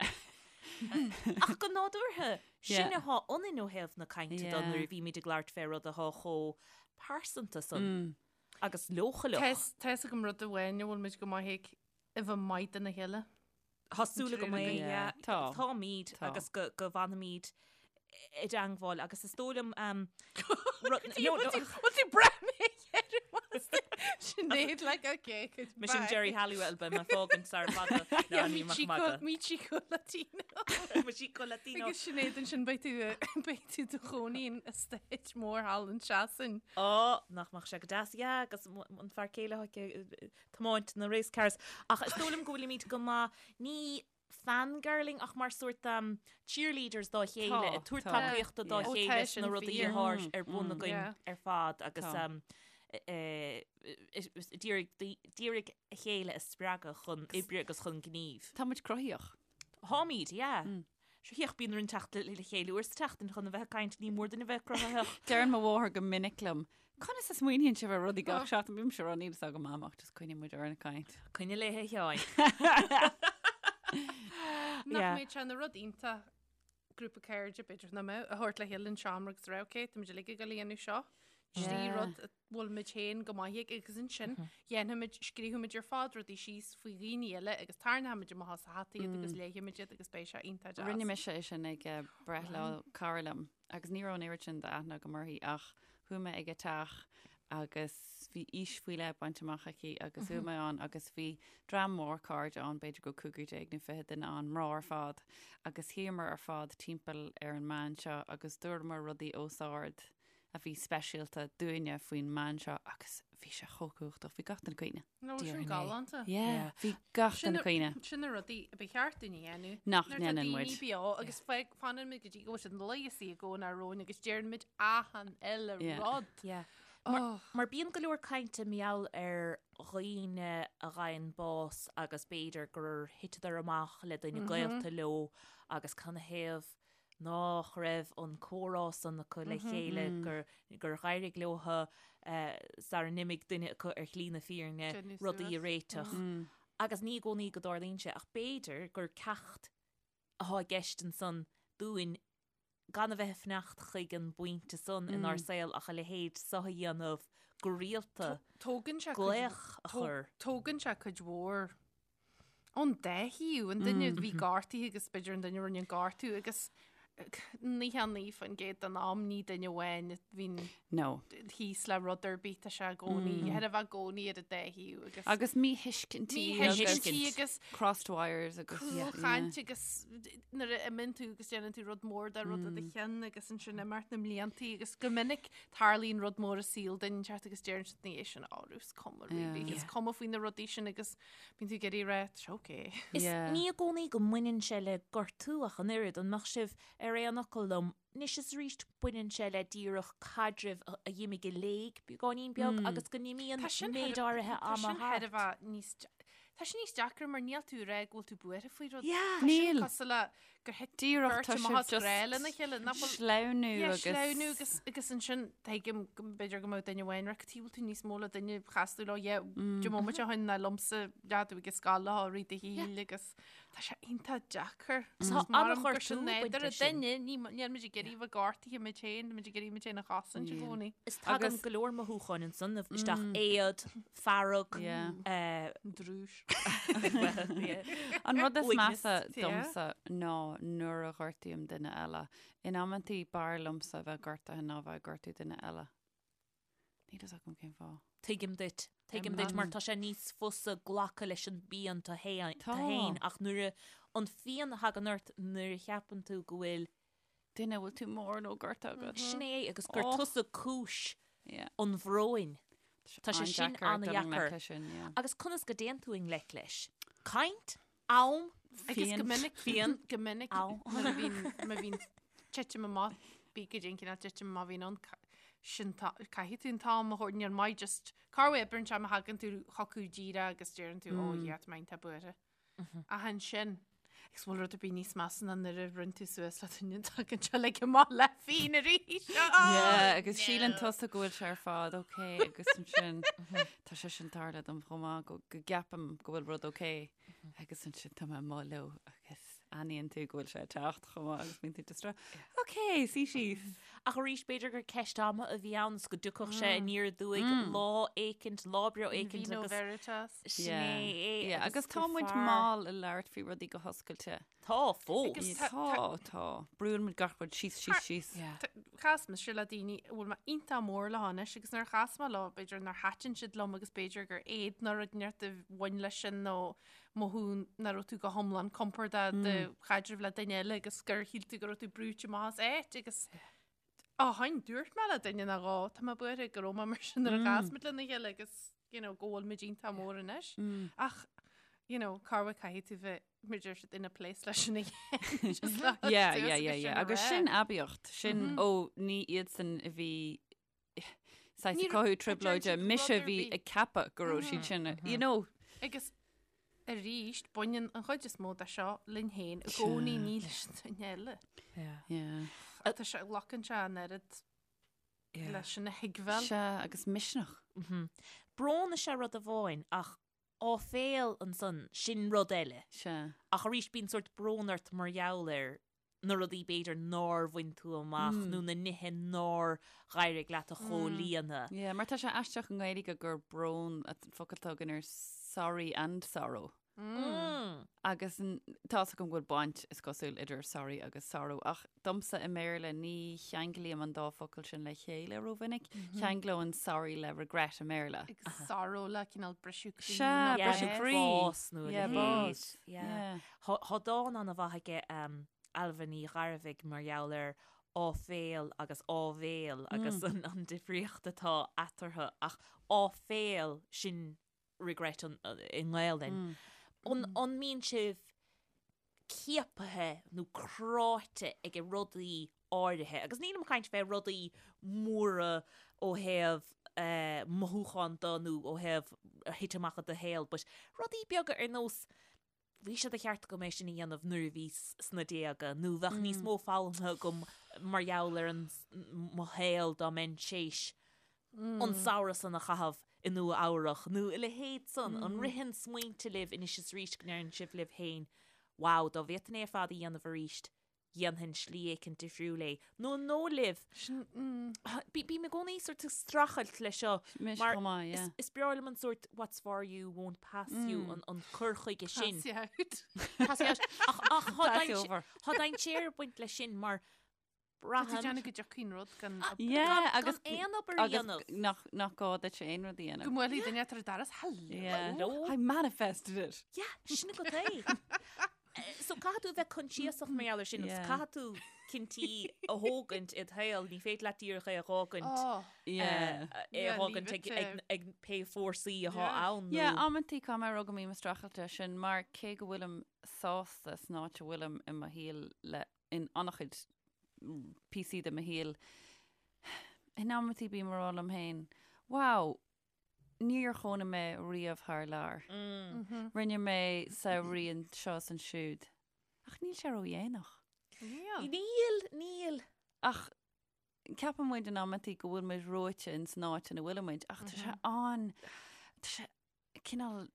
Ach go nádúrtha, sin Yeah. atá ionainn ó thaobh na cainte de Yeah. nuair a bhímid ag labhairt fé rud atá chomh pearsanta san agus leochaileach. Tá fhios agam rud amháin a bhfuil muid go maith ag a bheith maith dona chéile. Tá súil agam é, Yeah. yeah. Tá. Táimid Tá. agus go go bhfanfaimid i dteangmháil agus is dóigh liom um, rud- no, no, Bhfuil tú breathnaithe Sinéad like okay Mise an Geri Halliwell beidh mé fágaint sar fada ná ní maith magadh. Mi chico latino. Mi chico latino. Agus Sinéad ansin beidh tú beidh tú i do chónaí in estate mór thall in Sasain. Ó, nach mbeadh sé go deas, yeah, agus an fear céile ag tiomáint na race cars. Ach is dóigh liom go bhfuilimid go maith, ní fangirling ach mar sórt um, cheerleaders dá chéile, Tá, ag tabhairt tá. tacaíochta dá Yeah. Ó, chéile tá sna sin rudaí fíor. atá ar bun againn Yeah. ar fad agus Tá. um, d'iarraidh a chéile a spreagadh chun oibre agus chun gnímh. Tá muid cruthaíoch. Táimid, yeah. Sure thiocfadh bíonn orainn teacht le chéile uair sa tseachtain chun a bheith ag caint, ní mór dúinn a bheith cruthaitheach. Deireann mo mháthair go minic liom, Conas a smaoiníonn sibh ar rudaí gach seachtain? Bímse ag rá níl fhios agam mam ach just coinníonn muid orainn ag caint. Coinnigh léi a Sheáin. Nach Yeah. mbeadh sé ina rud iontach grúpa cairde b'fhéidir nach mbeadh a thabhairt le chéile in seomra agus rá ok, tá muid uilig ag dul a dhéanamh seo. Trí Yeah. rud a bhfuil muid féin go maith ag agus ansin dhéanfaimid, scríobfaimid ar fad rudaí síos faoi dhaoine eile agus tarraingeoimid amach as a hata iad agus léifimid iad agus beidh sé iontach deas. Rinne mise é sin ag eh, breithlá cara liom agus ní raibh an oiread sin d'aithne agam uirthi ach chuaigh mé ag a teach agus bhí aois faoi leith bainte amach aici agus chuaigh mé ann agus bhí dream mór cairde ann, b'fhéidir go raibh 15 nó 20 duine ann, mná ar fad, agus shuíomar ar fad timpeall ar an mbean seo agus dúramar rudaí os ard a bhí speisialta dúinne faoin mbean seo agus bhí sé chomh cumhachtach, bhí gach duine ag caoineadh. Nó sin Déarfainn é. galánta. Yeah, bhí gach Sin duine ag caoineadh. Sin na rudaí a ba cheart dúinn a dhéanamh. Nach Nuair atá ndéanann daoine muid. beo agus fanann muid go dtí go bhfuil siad leigheasaí i gcónaí romhainn agus deireann muid achan uile Yeah. rud. Yeah. Oh. Mar bíonn go leor cainte mar gheall ar dhaoine a gheibheann bás agus b'fhéidir gur thiteadar amach le duine gaolta leo agus canathaobh nách raibh an comhrá san acu le chéile, gur gur dh'éirigh leotha sara n-imigh duine acu ar shlí na fírinne Déanamh rudaí a suas. réiteach. Agus ní i gcónaí go dtarlaíonn sé, ach b'fhéidir gur ceacht athá i gceist ansan dúinn gan a bheith ag fanacht chuig an bpointe san inár saol ach a leithéid so a dhéanamh go rialta, Tógann sé cuid- glaoch a chur. Tógann sé cuid mhór ón dá thaobh, an duine a bhí gortaithe agus b'fhéidir an duine a rinne an gortú agus. 99% den am ní duine amháin a bhíonn No. thíos le rud ar bith tá sé i gcónaí, chóir a bheith i gcónaí ar an dá thaobh agus Agus míthuiscintí míthuiscintí agus crossed wires agus cúlchaint agus nuair a imíonn tú agus déanann tú rud mór de rud i do cheann agus ansin imeacht na mbliantaí agus go minic tarlaíonn rud mór i saol duine inteacht agus deireann siad ina dhiaidh sin á is cuma really, is cuma faoi na rudaí sin agus bíonn tú ag iarraidh a rá, tá sé okay. Is ní i gcónaí go mbaineann sé le gortú ach an oiread, an mbeadh sibh ar aon fhocal liom? Anois is arís baineann sé le díreach caidrimh a d'imigh i léig beagáinín beag agus go n-imíonn méid áirithe ama thart. Tá sin níos deacra mar níl tú ag rá go bhfuil tú buartha faoi rud. Yeah. Tá sin Níl. cosúil le gur thit Díreach beirt tá amach sibh as grá just lena chéile, nach bhfuil sleamhnú Yeah, agus sleamhnú agus agus ansin tuigim go mb'fhéidir go mbeadh duine amháin ag rá cad chuige bhfuil tú níos mó le duine chas tú leo yeah, deich mbomaite ó shin ná liomsa leath tú ag an scoil leo i rith do shaoil agus tá sé iontach deacair. Tá Is mar an-ghortú gur sin baint nádúr leis sin. duine, ní níl muid ag iarraidh bheith gortaithe muid féin, tá muid ag iarraidh muid féin a chosaint i gcónaí. Is tagann Agus- go leor mothúcháin ansan isteach, éad, fearg, Yeah. Drúis. well, yeah. An rud is Uaigneas. measa Yeah. domsa ná nuair a ghortaím duine eile. In amantaí b'fhearr liomsa a bheith gortaithe ná bheith ag gortú duine eile. Níl fhios agam cén fáth. Tuigim duit. Tuigim duit mar tá sé níos fusa glacadh leis an bpian tú Tá. féin ach nuair a an phian a thagann ort nuair a cheapann tú go bhfuil Duine bhfuil tú mór nó gortaithe agat. sin é agus gur Oh. tusa cúis Yeah. an bhróin. Tá sé sin An-deacair dul i ngleic an-dheacair. leis sin, yeah. Agus conas go dtéann tú i ngleic leis? Caint? Am? Agus go Phian. minic Phian. go minic Am. nuair a bhíonn má bhíonn titim amach bí go dtí an cineál titim amach a bhíonn ann ca- sin tá- caithfidh tú an t-am a thabhairt níl maith just cá bhfuil oibreann sé má thagann tú chucu díreach agus deireann tú ó yeah tá mé iontach buartha. Ach ansin agus bhfuil rud ar bith níos measa ná nuair a rinne tú suas le duine tagann sé like amach le fíon arís. Yeah, agus síleann tusa go bhfuil sé ar fad ok agus ansin tá sé sin tarlaithe dom chomh maith go go gceapaim go bhfuil rud ok agus ansin tá mé amuigh leo agus aithníonn tú go bhfuil sé ag teacht chomh maith agus bíonn tú just ag rá, ok, suigh síos. Ach arís b'fhéidir gur ceist ama a bhí ann is go dtiocfadh sé aniar aduaidh lá éicint, lá breá éicint Vino agus veritas. sin é é. Yeah, agus tá gur muid fearr- mall ag labhairt faoi rudaí go hoscailte. Tá fós. Agus Tá, tá- tá. Brúann muid gach rud síos, síos, síos. Yeah. Chas mise le daoine a bhfuil mé iontach mór leo anois agus nuair a chas mé leo b'fhéidir nár thaitin siad liom agus b'fhéidir gur éad nó rud inteacht a bhain leis sin nó mothú nach raibh tú go hiomlán compordach i do chaidreamh le duine eile agus gur shíl tú go raibh tú brúite amach as áit agus ó shin dúirt mé le duine nó dhó tá mé buartha go raibh mé mar sin nuair a chas muid lena chéile agus you know, go bhfuil muid iontach mór anois. Ach you know, cá bhfuil caithfidh tú bheith mar deir siad in a place leis sin a dhéanamh, just le Yeah, suas yeah, agus yeah, sin yeah. a Agus rá. sin aibíocht, sin ó ní iadsan a bhí saghas Ní ag cothú raibh- trioblóide, deir siad mise rud ar bhí bith. ag ceapadh go raibh siad sin, you know. Agus arís, baineann an chuid is mó de seo linn féin i gcónaí ní leis an duine eile. Yeah. Tá sé glacann sé an oiread leis sin a thuigbheáil. Sea, agus misneach. Brón is ea rud amháin ach áiféal ansan, sin rud eile. Sea. Ach arís bíonn sórt brón ort mar gheall ar na rudaí b'fhéidir nár bhain tú amach nó na nithe nár dh'éirigh leat a chomhlíonadh. Yeah, mar tá sé aisteach i nGaeilge gur brón an focal atá againn ar sorry and sorrow. Agus tá's agam go bhfuil baint is cosúil idir sorry agus sorrow, ach domsa i mBéarla ní cheanglaím an dá focal sin le chéile rómhinic. Cheanglóinn sorry le regret i mBéarla. Agus sorrow le cineál briseadh croí. Sea, nó briseadh bás. croí. Bás nó a Yeah, leithéid. bás. Yeah. Yeah. Tá dán an-mhaith aige Ailbhe Ní Ghairbhigh mar gheall ar áiféal agus áibhéil agus an difríocht atá eatarthu ach áiféal sin regret i nGaelainn. An an mbíonn sibh ciapaithe nó cráite ag rudaí áirithe? Agus nílim ag caint fé rudaí móra ó thaobh mothúchán de nó ó thaobh a thit amach i do shaol, but rudaí beaga ar nós bhí sé de cheart agam é sin a dhéanamh nuair a bhíos sna déaga nó bheadh níos mó foghlamtha agam mar gheall ar an mo shaol dá mbeinn théis an samhradh san a chaitheamh i Nua Eabhrach nó a leithéid san. An ritheann smaointe libh anois is arís go ndeireann sibh libh féin, wow, dá bhféadfainn é ar fad a dhéanamh arís? dhéanfainn slí éicint difriúil é. Nó an dóigh libh, bím i gcónaí sort ag streachailt leis seo mar is breá liom an sort what's for you won't pass you an cur chuige sin. Pass you out. Pass you out. Ach tá dainséar ag baint leis sin mar Tá tú déanamh go dtiocfaidh an rud gan Yeah, agus aon obair a dhéanamh. Nach nach gá duit aon rud a dhéanamh. Go mbuailfidh duine ar an doras, hello. Yeah. I manifested it. Yeah, sin agat é. So caithfidh tú a bheith coinsiasach mar gheall air sin agus caithfidh tú cinntí a thógaint i do shaol, ní féidir leat díreach é a dh'fhágaint é a dh'fhágaint ag pé fórsaí atá ann. Yeah, amantaí caithfidh mé a rá go mbím ag streachailt leis sin mar cé go bhfuilim sásta san áit a bhfuilim i mo shaol le in an-chuid píosaí de mo shaol, in amantaí bím ag rá liom féin, wow, níor chónaigh mé riamh thar lear. Rinne mé samhraí anseo is ansiúd. Ach níl sé ródhéanach. Níl. Níl, níl. Ach ceapann muid in amantaí go bhfuil muid reoite in san áit ina bhfuil muid, ach tá sé an, tá sé cineál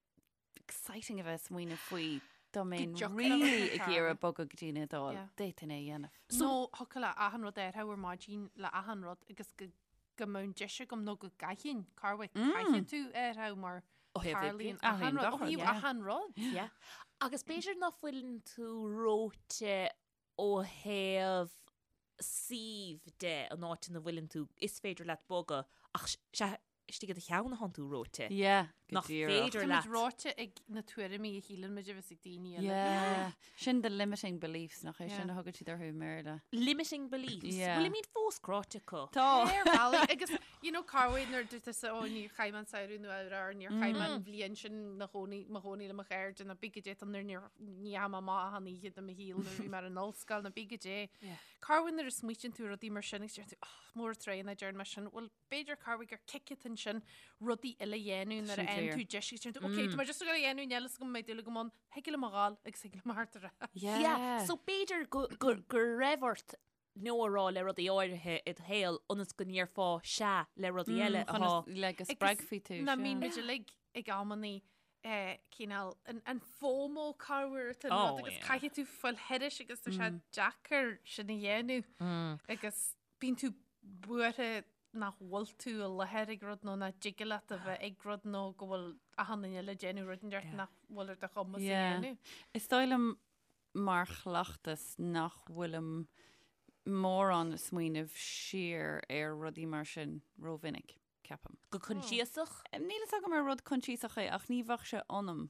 exciting a bheith ag smaoineamh faoi dá mbeinn really ag iarraidh bogadh go dtí an Iodáil, d'fhéadfainn é a dhéanamh. Nó thiocfadh le achan rud athrú ar maidin le achan rud agus go go mbeadh an deis agam nó go gcaithfinn, corruair caithfidh tú athrú mar tarlaíonn achan rud, ó thaobh achan rud. Yeah. Agus b'fhéidir ná fuileann tú reoite ó thaobh suímh de, an áit ina bhfuileann tú, is féidir leat bogadh ach sea, istigh i do cheann atánn tú reoite. Yeah, go Nach díreach. féidir Táimid leat. reoite ag na tuairimí a shíleann muid a bheas ag daoine eile. Yeah. Sin the limiting beliefs, nach é sin Yeah. a thugann siad orthu i mBéarla. Limiting beliefs. Yeah. Bhfuilimid fós cráite acu? Tá. Ar bhealaí, agus you know corruair nuair dúirt tusa ó níor chaith mé an samhradh nó ar níor chaith mé an bhliain sin na chónaí mo chónaí le mo chairde nó bí goidé nuair níor ní dheachaigh mé amach achan oíche de mo shaol nuair a bhí mé ar an ollscoil nó bí goidé. Corruair nuair a smaoitíonn tú ar rudaí mar sin agus deir tú oh, mór an truaighe nach ndearna mé sin bhuel b'fhéidir corruair gur cic atá ansin rudaí eile a dhéanamh nuair a Sin fhaigheann fíor. tú deis agus deir tú ok tá mé just ag dul a dhéanamh níl a fhios agam an mbeidh dúil agam ann thig liom a ghabháil agus thig liom a theacht ar ais. Yeah. Yeah. So b'fhéidir go, go, go raibh ort no a rá le rudaí áirithe i do shaol ionas go ndéarfá sea le rudaí eile Chun atá is- le go spreagfaí tú. Ná sea. mbíonn muid uilig ag amannaí eh, cineál an, an FOMO corruair atá Oh, rud agus yeah. caithfidh tú fáil thairis agus tá sé deacair sin a dhéanamh agus bíonn tú buartha nach bhfuil tú i láthair ag rud nó nach dtig leat a bheith ag rud nó go bhfuil achan duine eile ag déanamh rud inteacht nach bhfuil ar do chumas a Yeah. dhéanamh. Is dóigh liom mar chleachtas nach bhfuilim mórán ag smaoineamh siar ar rudaí mar sin rómhinic, ceapaim. go coinsiasach. Níl fhios agam ar rud coinsiasach é ach ní bheadh sé ionam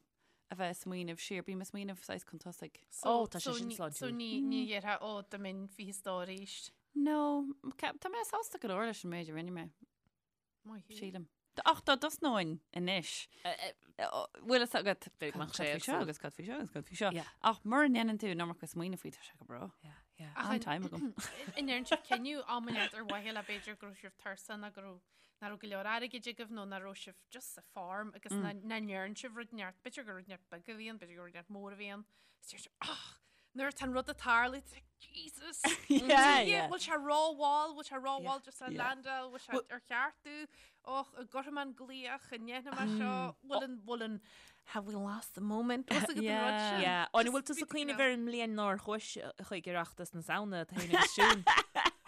a bheith ag smaoineamh siar, bím ag smaoineamh saghas chun tosaigh. Ó, tá sé so sin ní- sláintiúil. So ní ní dhéarfá ó dá mbeinn 20 stór arís. No, tá mé sásta go leor leis an méid a rinne mé, Maith thú. sílim. Ach dá dtosnóinn anois, bhfuil fhios agat Bheadh cad sé faoi seo éagsúil. agus cad faoi seo agus cad faoi seo. Yeah. Ach mura ndéanann tú an iomarca smaoineamh faoi, tá sé go breá. Yeah, yeah. Ach An time agam. An ndéarn sibh cinneadh am inteacht ar mhaithe le b'fhéidir go raibh sibh tuirseach nó go raibh nach raibh go leor airgid agaibh nó nach raibh sibh just sa form agus nach ndearn sibh rud inteacht, b'fhéidir gur rud inteacht beag a bhí ann, b'fhéidir gur rud inteacht mór a bhí ann. Is deir sibh, "Ach, nuair atá an rud ag tarlú, tá Jesus! Yeah, yeah. Bhfuil sé rómhall, bhfuil sé rómhall just a Yeah. landáil, bhfuil sé ar cheart domh, och, an gcuirfidh mé an glaoch, an ndéanfaidh mé seo, bhfuil an, bhfuil an, have we lost the moment? Bhfuil fhios agat an rud Yeah. sin? Yeah. An bhfuil Just tú ag bhí cuimhneamh cineál- ar an mbliain nár chuais chuig Oireachtas na Samhna tú féin agus Siún?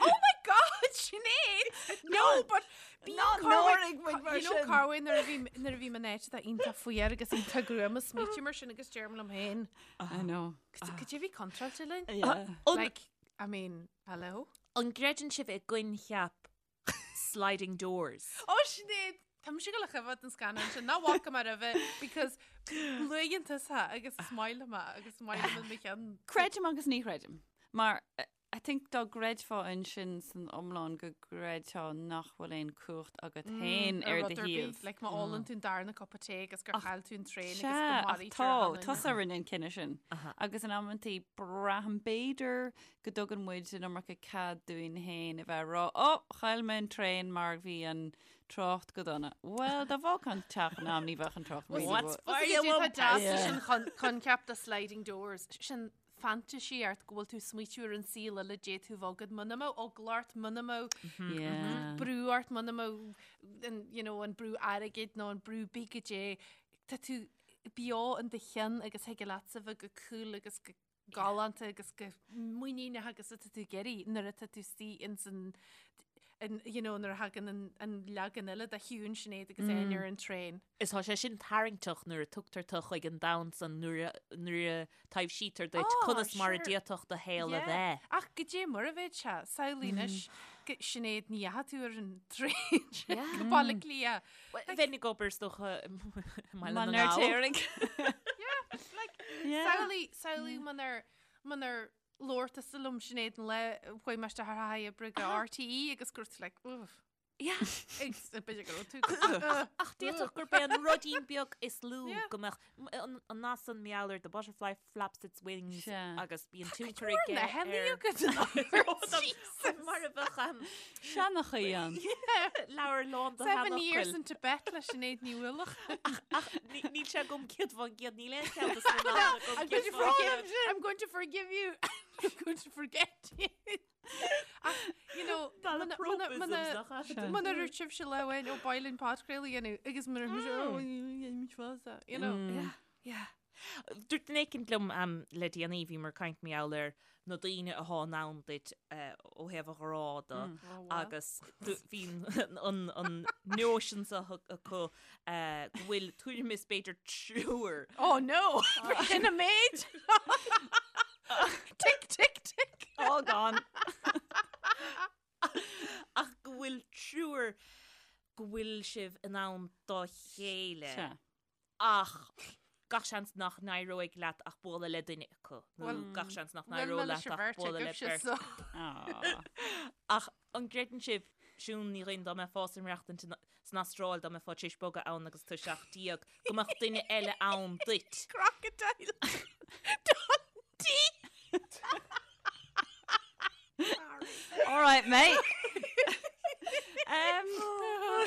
Oh my God, Sinéad! No, but bíonn Ná corruair- náirigh muid mar You know sin. corruair nuair a bhí nuair a bhím in áit atá iontach fuar agus iontach gruama smaoitím mar sin agus deirim liom féin. I know. Cad é a bhí contráilte linn? Yeah. An- Like, I mean, hello? An gcreideann sibh i gcoincheap sliding doors? Ó Sinéad, tá mise ag gabháil a choimhéad an scannán sin, nach bhfaca mé roimhe because luaigheann tusa agus is maith liom é agus is maith liom i mo cheann. Creidim agus ní chreidim. Mar I think dá gcreidfeá ansin san iomlán go gcreidfeá nach bhfuil aon cumhacht agat féin ar do rud ar bith, thaobh. Like má ólann tú an darna cupa tae agus gur chaill tú an traein agus go Sea, ach maraítear tá, achan duine. tusa a rinne an cinneadh sin. Agus in amantaí braithim b'fhéidir go dtugann muid an iomarca cead dúinn féin a bheith ag rá, Ó, chaill mé an traein mar bhí an trácht go dona. Bhuel, dá bhfágfá an teach in am ní bheadh an trácht really What's go- for Is you é won't tá deas Yeah. sin chun coincheap de sliding doors, sin fantasy ort go bhfuil tú ag smaoitiú ar an saol eile d'fhéadfadh a bheith agat muna mbeadh eagla ort, muna mbeadh Yeah. brú ort, muna mbeadh an, you know, an brú airgid nó an brú bí goidé. Tá tú beo in do cheann agus thig leatsa bheith go cool agus go. galánta agus chomh muiníneach agus atá tú ag iarraidh nuair atá tú istigh ins an an you know nuair a thagann an an leagan eile de Shiún Sinéad agus Áine ar an traein. Is tá sé sin tarraingteach nuair a tugtar tu chuig an domhan san nuair a nuair a taibhsítear duit Oh, conas mar a sure. d'fhéadfadh do shaol a Yeah. bheith. Ach goidé mar a bheadh sé, samhlaigh anois go Sinéad ní dheachaigh tú ar an traein sin Yeah. go Baile Átha Cliath. Well, Bheinn ag obair is dócha i mBaile na Mar nGall. Téirigh. Like, Yeah. samhlaigh, samhlaigh munar, munar labhair tusa liom Sinéad an lá a chuaigh mé isteach ar haghaidh oibre go RTÉ agus gur tú like, uff. Yeah. Agus b'fhéidir go raibh tú go- Ach d'fhéadfadh gurb é an ruidín beag is lú Yeah. go mbeadh m- an an nath san mar gheall ar the butterfly flaps its wings Sea. agus bíonn tionchar Tá aige na hennaí ar agat Jesus. mar a bheadh an Seanchaí an. leabhar lán de Seven years sheanfhocail. in Tibet le Sinéad Ní Uallacháin. Ach ní- níl sé agam 100%, níl aon cheann de sna nathanna agam I'm going to 100%. forgive I'm going to forgive you. I'm going to forget you. Ach, you know, Malapropisms nach ea? Muna raibh sibhse le bhain ó bailin podchraoladh a dhéanamh agus muna raibh mise, oh, dhéanfaimid fásta, you know. Yeah, yeah. Dúirt duine éicint liom le déanaí, bhíomar ag caint mar gheall ar na daoine athá in ann duit ó thaobh an ghrá de agus bhí an notion seo acu go bhfuil tuairim is b'fhéidir triúr. Oh no! Sin an méid! Tick, tick, tick! All gone. Ach go bhfuil triúr go bhfuil sibh in ann dá chéile. Sea. Ach gach seans nach n-éireoidh leat ach bualadh le duine acu, nó Bhuel, gach seans nach bhuel, n-éireoidh leis leat an ach bheirt bualadh le agaibhse, beirt. so. Aw. Ach an gcreideann sibh, Siún Ní Dhuinn, dá mbeifeá ag maireachtaint san Astráil, dá mbeifeá tar éis bogadh ann agus tú 17, go mbeadh duine eile ann duit? Crocodile Dundee! All right, mate. Um,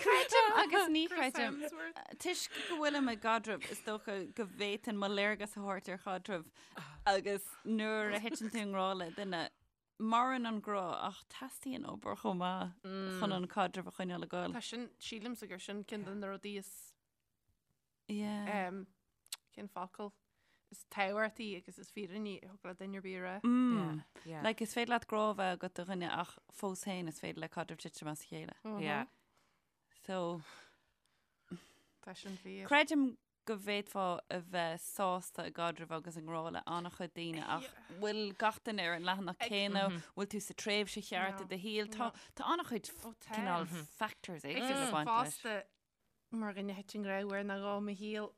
Creidim agus ní Chris chreidim. Hemsworth. Toisc go bhfuilim i gcaidreamh is dócha go bhféadfainn mo léargas a thabhairt ar chaidreamh agus nuair a thiteann tú i ngrá le duine, maireann an grá ach teastaíonn obair chomh maith chun an caidreamh a choinneáil ag goil. Tá sin, sílimse gur sin ceann de na rudaí is Yeah. um, cén focal is tábhachtaí agus is fírinní a thig le duine ar bith a rá. Mm. Yeah. Like, is féidir leat grá a bheith agat do dhuine ach fós féin is féidir le caidreamh titim as a chéile. Yeah. So, Tá sin fíor. creidim go bhféadfá a bheith sásta i gcaidreamh agus i ngrá le an-chuid daoine ach bhfuil gach duine ar an leathanach céanna, bhfuil tú sa tréimhse cheart i No. do shaol, tá tá an-chuid Ó, tá. cineál factors éagsúla Agus ag baint leis. fosta mar dhuine a thit i ngrá uair nó dhó i mo shaol.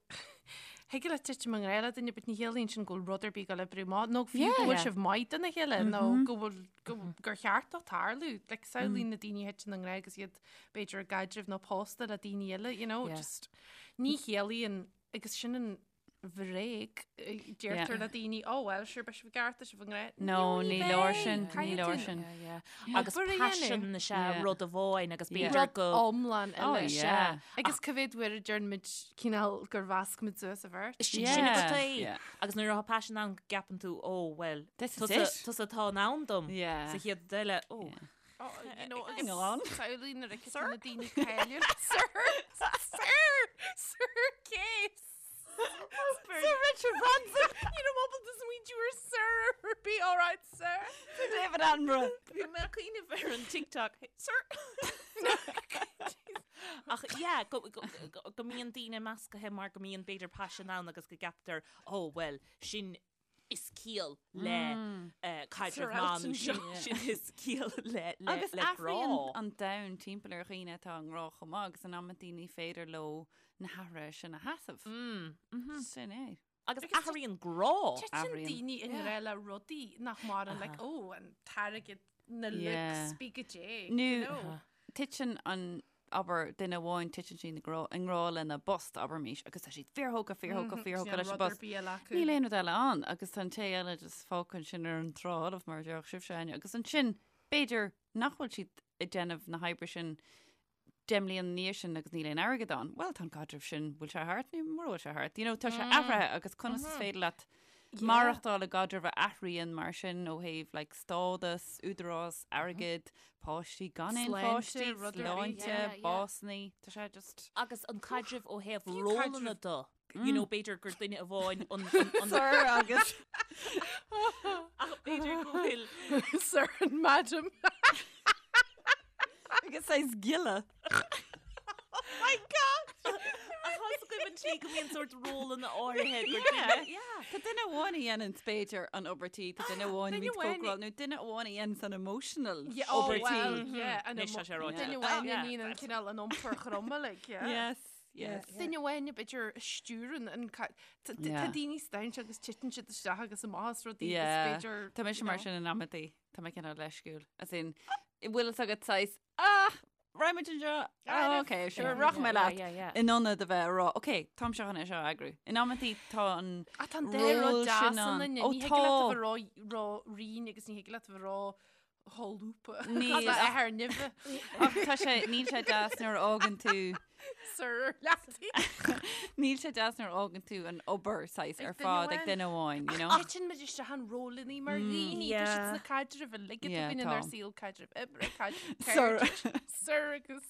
Thig leat titim i ngrá le duine, but ní chiallaíonn sin go bhfuil rud ar bith ag dul oibriú amach, nó fiú go bhfuil Yeah. sibh maith dona chéile, nó go bhfuil go gur cheart dó tarlú. Like, samhlaigh na daoine a thiteann i ngrá agus iad b'fhéidir i gcaidreamh nó pósta le daoine eile, you know, Yeah. just ní chiallaíonn agus sin an bhréag deirtear le daoine, oh well, sure, beidh sibh i gceart, tá sibh i ngrá. No, ní leor sin, ní Caithfidh leor tú sin. Yeah, yeah. Agus Obair a paisean dhéanamh. is ea Yeah. rud amháin agus Yeah. b'fhéidir Rud go iomlán Oh, eile. yeah. Agus cá mhéad uair a deireann muid cineál gur mheasc muid suas an bheirt. Sin Yeah. sin agat é. Yeah. Agus nuair atá paisean ann go gceapann tú, oh well, This is tusa it. tusa atá in ann dom. Yeah. Sa chéad rud eile, oh. Oh, you know, Hang on. Samhlaigh nuair a thiteann na daoine cáiliúla. Sir! Sir! Sir Case! Sir Richard Branson! You know, ábalta smaointiú ar Sir ar bith, all right, sir. Sir David Attenborough! Bhí mé ag cuimhneamh ar an TikTok. Hey, Sir! Ach yeah, go, go, go, go mbíonn daoine meascaithe mar go mbíonn b'fhéidir paisean ann agus go gceaptar, oh well, sin is ciall le caidreamh Sir maith Elton nó sin John. sin is ciall le le Agus le grá. athraíonn an domhan timpeall ar dhaoine atá i ngrá chomh maith agus in amantaí ní féidir leo na hathruithe sin a sheasamh. Sin é. Agus athraíonn grá. Titeann Athraíonn. daoine i ngrá le rudaí nach maireann, like, oh, an t-airgead, na Yeah. looks, bí go dé, Nó you know. titeann an, abair, duine amháin, titeann siad i ngrá, i ngrá lena bpost, abraimis, agus tá siad fíorthógtha, fíorthógtha, fíorthógtha leis an Rud ar bpost. bith eile acu. Níl aon rud eile ann agus tá an té eile just fágtha ansin ar an trá fholamh mar a déarfadh sibhse, Áine, agus ansin b'fhéidir nach bhfuil siad ag déanamh na hoibre sin 10 mbliana ina dhiaidh sin agus níl aon airgead ann, bhuel tá an caidreamh sin, bhfuil sé thart nó mura bhfuil sé thart? You know, tá sé athraithe agus conas is féidir leat maireachtáil i gcaidreamh a athraíonn mar sin ó thaobh like stádas, údarás, airgead, páistí, gan aon Sláinte, pháistí, rud ar bith, sláinte, yeah, yeah. básanna, tá sé just. Agus an caidreamh ó thaobh Fiú rólanna caidreamh- de. You know, b'fhéidir gur duine amháin an Sir agus Ach b'fhéidir go bhfuil Sir and Madam. Agus saghas giolla. Oh my God! Ach tá a fhios agaibh an tslí go mbíonn sórt rólanna áirithe gur duine. Yeah. Tá duine amháin a dhéanann b'fhéidir an obair tí, tá duine amháin a Duine bhíonn amháin- cócaráil nó duine amháin a dhéanann an emotional Yeah, oh, obair tí. well, yeah, an Anois tá sé ráite. Duine amháin a Yeah. níonn an cineál an iompar throma, like, yeah. Yes, yes. Duine amháin b'fhéidir a stiúrann an ca- Tá Yeah. daoine stainse agus titeann siad isteach agus amach as rudaí agus Yeah. b'fhéidir, Tá mise you mar know. sin in amantaí, Tá mé cineál leisciúil. As in, bhfuil fhios agat saghas, ah, raghaimid anseo, ah, ok, sure, rachaidh mé leat. Yeah, yeah. In ionad a bheith ag rá, ok, táimse chun é seo a eagrú. In amantaí tá an Ah, tá an dá rud ról deas sin ann, ann. ní Ó, thig leat a tá. bheith ró- ró-righin agus ní thig leat a bheith ró-sholúbtha. Níl, Tá ach- athair nimhe. Ach tá sé, níl sé deas nuair a fhágann tú, Sir leataí. níl sé deas nuair a fhágann tú an obair saghas Ag ar duine fad ag amháin. duine amháin, you know? Titeann muid isteach in rólanna mar dhaoine, tá siad Yeah. sna caidrimh uilig atá Yeah, againn inár tá. saol, caidreamh oibre, caidreamh Sir. cairde, Sir agus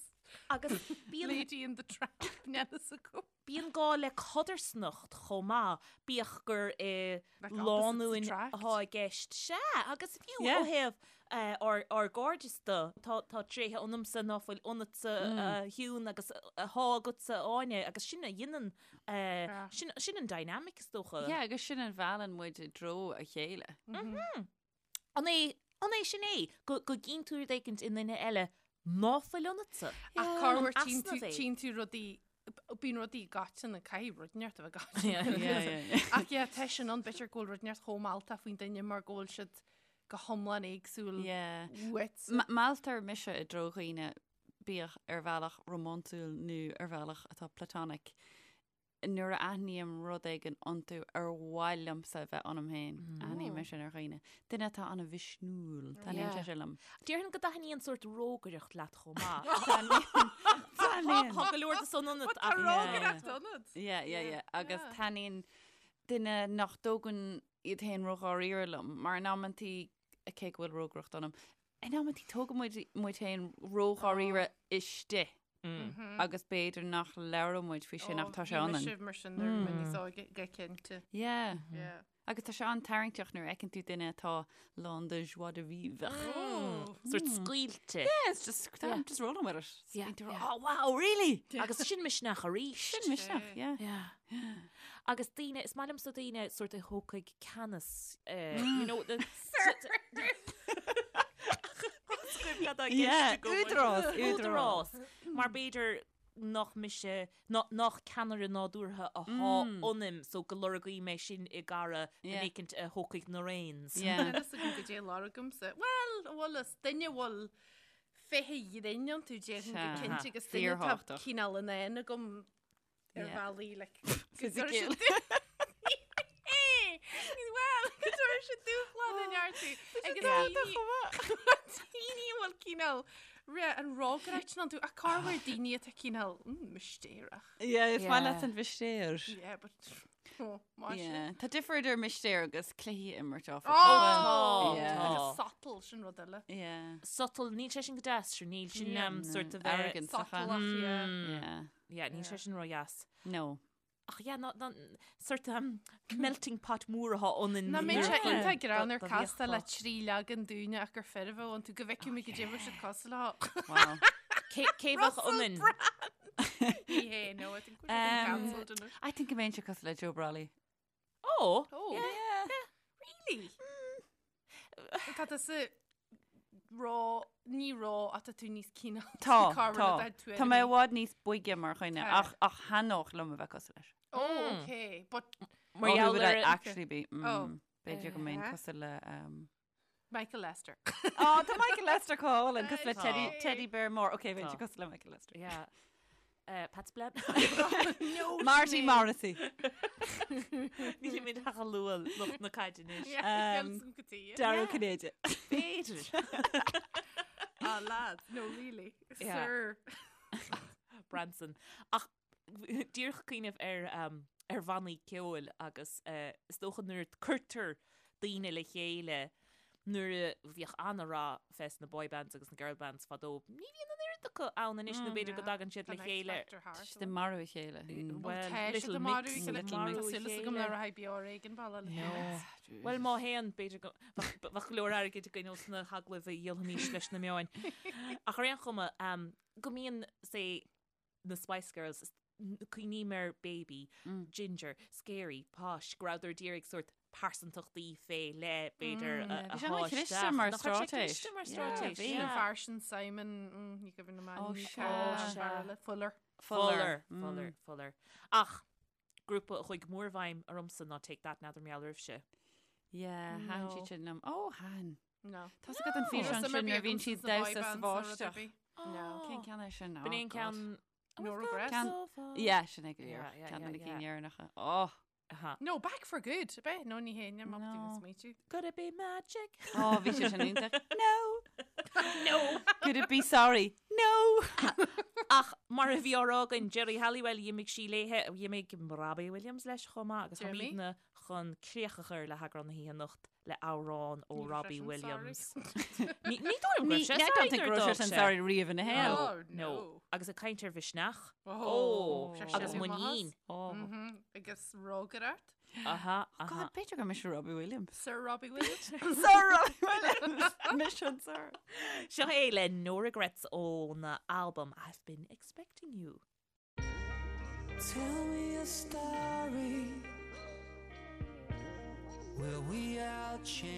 Agus bíonn Lady in the Tramp, níl fhios agam. Bíonn gá le codarsnacht chomh maith, bíodh gur i Like opposites lánúin attract. atá i gceist. Sea, agus fiú Yeah. ó thaobh ár ár gcairdeas de, tá tá tréithe ionamsa ná fuil ionatsa a Shiún agus atá agatsa a Áine agus sin a dhéanann Yeah. sin sin an dynamic is dócha. Yeah, agus sin a mheallann muid i dtreo a chéile. An é an é sin é go go gcíonn tú rud éicint i nduine eile ná fuil ionatsa? Ach corruair An tchíonn tú easnamh é. tchíonn tú rudaí Bíonn rudaí gaiteanna, caithfidh rud inteacht a bheith gaiteanna. Yeah, yeah, yeah. Ach yeah, tá sin ann, b'fhéidir go bhfuil rud inteacht chomh mealltach faoin duine mar go bhfuil siad go hiomlán éagsúil Yeah. uait. Mealltar mise i dtreo dhaoine, bíodh ar bhealach rómánsúil nó ar bhealach atá platonic, nuair a aithním rud éigin iontu ar mhaith liomsa a bheith ionam féin. Aithním é sin ar dhaoine. Duine atá an-mhisniúil, taitníonn sé sin liom. Déarfainn go dtaitníonn sórt rógaireacht leat chomh maith. Taitníonn. Tá go leor de san ionat Tá ach rógaireacht ionat. Yeah, yeah, yeah. Agus Yeah. taitníonn duine nach dtógann iad féin ródháiríre liom, mar in amantaí, cé go bhfuil rógaireacht ionam, in amantaí tógann muid muid féin ródháiríre istigh agus b'fhéidir nach labhrann muid faoi sin ach tá sé Bhí ionainn. mise mar sin nuair a bhí mé níos óige, go cinnte. Yeah. Yeah. Agus tá sé an-tarraingteach nuair a fheiceann tú duine atá lán de joie de vivre. Sórt scaoilte. Yeah, it's just, I'm just rolling with it. Yeah, Bíonn tú, yeah. Oh, wow, really? Agus sin misneach arís. Sin misneach, yeah. Yeah. Agus daoine, is maith liomsa daoine sórt a thógfaidh ceannas, eh, you know, the Yeah, údarás, údarás. Mar b'fhéidir nach mise, nach ceannaire nádúrtha atá ionam, so go lorgóidh mé sin i gcara Yeah. duine éicint a thógfaidh na reins. Yeah. Níl fhios agam goidé lorgaimse. Bhuel, a bhfuil fhios, duine a bhfuil féith an ghrinn iontu déarfainn go Sea. cinnte agus duine atá Fíorthábhachtach. cineál in ann agam ar Yeah. bhealaí like go Fisiciúil. Bhuel, go dtabharfaidh siad dúshlán in iontu. Agus daoine daoine a bhfuil cineál re an rógaireacht sin iontu ach corruair daoine atá cineál mm, mistéireach. Yeah, is maith Yeah. leat an mhistéir. Yeah, but oh, maith sin. Yeah. Tá difear idir mistéir agus cluichí a imirt áfach. Oh, Tá, Yeah. tá. Agus sotal sin rud eile. Yeah. Sotal, níl sé sin go deas, sure, níl sin Yeah. um, sort of a Arrogance. Sotalach, yeah. Yeah. Yeah, níl sé sin ró-dheas. No. Ach yeah, ná, ná, sort um, melting pot mór atá ionainn. Nach mbeadh sé iontach greannmhar Do- do castáil le bhíodh trí leagan daoine ach gur fir a bheadh iontu go bhfeicfidh muid goidé bheadh siad cosúil leo. Wow. Cé cé bheadh ionainn? Ní hé, no, I think we're getting Um, cancelled anois. I think go mbeinnse cosúil le Joe Brolly. Oh, Oh, Yeah. really? Tá tusa ró, ní ró ach tá tú níos cineál. Tá, Cá tá. rud atá tú Tá mé i bhfad níos boige mar dhuine Tá. ach ach thaitneodh liom a bheith cosúil leis. Oh, okay. But Mar Oh, who gheall would ar I an- actually be? Mm, Oh. B'fhéidir go mbeinn Uh-huh. cosúil le um, Michael Lester. Oh, tá Michael Lester go hálainn cosúil le Tá. Teddy, Teddy Bear mór. Ok, bheinnse Tá. cosúil le Michael Lester. Yeah. Uh, Pat Splen. No, Marty Sinéad. Morrissey. Nílimid ach ag lua lucht na caide anois. Yeah, Um, um, go dtí. Dara Ó Cinnéide. B'fhéidir. Ah, lads, no, really. Yeah. Sir. Branson. Ach díreach cuimhneamh ar um, ar bhannaí ceoil agus uh, is dócha nuair a cuirtear daoine le chéile nuair a bhíodh an-rath fés na boy bands agus na girl bands fadó. Ní bhíonn an oiread oiread acu ann anois nó b'fhéidir go dtagann siad le chéile. Tá siad ag marú a chéile. Bhuel, Tá siad Little ag marú Mix, a chéile. Little Mix. Tá súil agam le raghaidh beo ar éigean baile le chéile. Bhuel, má théann, b'fhéidir go bheadh go leor airgid againn ós na hagallaimh a dhíolfaimis leis na meáin. Ach ar aon chuma, go mbíonn, say, na Spice Girls, cuimhním ar Baby, Ginger, Scary, Posh, go rabhadar d'iarraidh sórt pearsantachtaí fé leith, b'fhéidir, a Bhí sé shá an-chliste isteach. mar Nach raibh sé straitéis. cliste mar Yeah, straitéis? bhí. An Yeah. fear sin Simon, mm, ní cuimhin liom Ó, ainm, sea. an fear eile, Fuller. Fuller, Fuller, Fuller. Ach grúpa a chuaigh go mór i bhfeidhm ormsa ná Take That, n'fheadar mar gheall oraibhse. Yeah, thaitin siad sin liom. Ó, thaitin. No. Tá a fhios agat an físeán sin nuair a bhíonn siad damhsa sa bháisteach. Cén ceann é sin? B'in é an ceann... No Regrets. Ceann... Yeah, sin é go díreach. Ceann de na cinn dheireanacha. Oh! No, Back for Good, ab é? No, ní hé, níl mé ábalta even smaoitiú. Could it be magic? Oh, bhí sé sin iontach. No! No! Could it be sorry? No! Ach mar a bhí á rá againn, Geri Halliwell, d'imigh sí léithe, d'imigh Robbie Williams leis chomh maith agus táimidne chun críoch a chur le heagrán na hoíche anocht le amhrán ó Robbie Williams. Ní dóigh liom go raibh sé I don't think sorry go raibh nuair sé sin a d'fhág sé. sorry riamh ina shaol. Oh, No. no. Agus ag caint ar mhisneach. Oh, sé Agus sin muinín. Oh. Mhm. Agus rógaireacht. Aha, aha. God, b'fhéidir gur mise Robbie Williams. Sir Robbie Williams. Sir Robbie Williams! Mise an Sir. Seo é le No Regrets óna albam I've Been Expecting You. Tell me a story where we all change.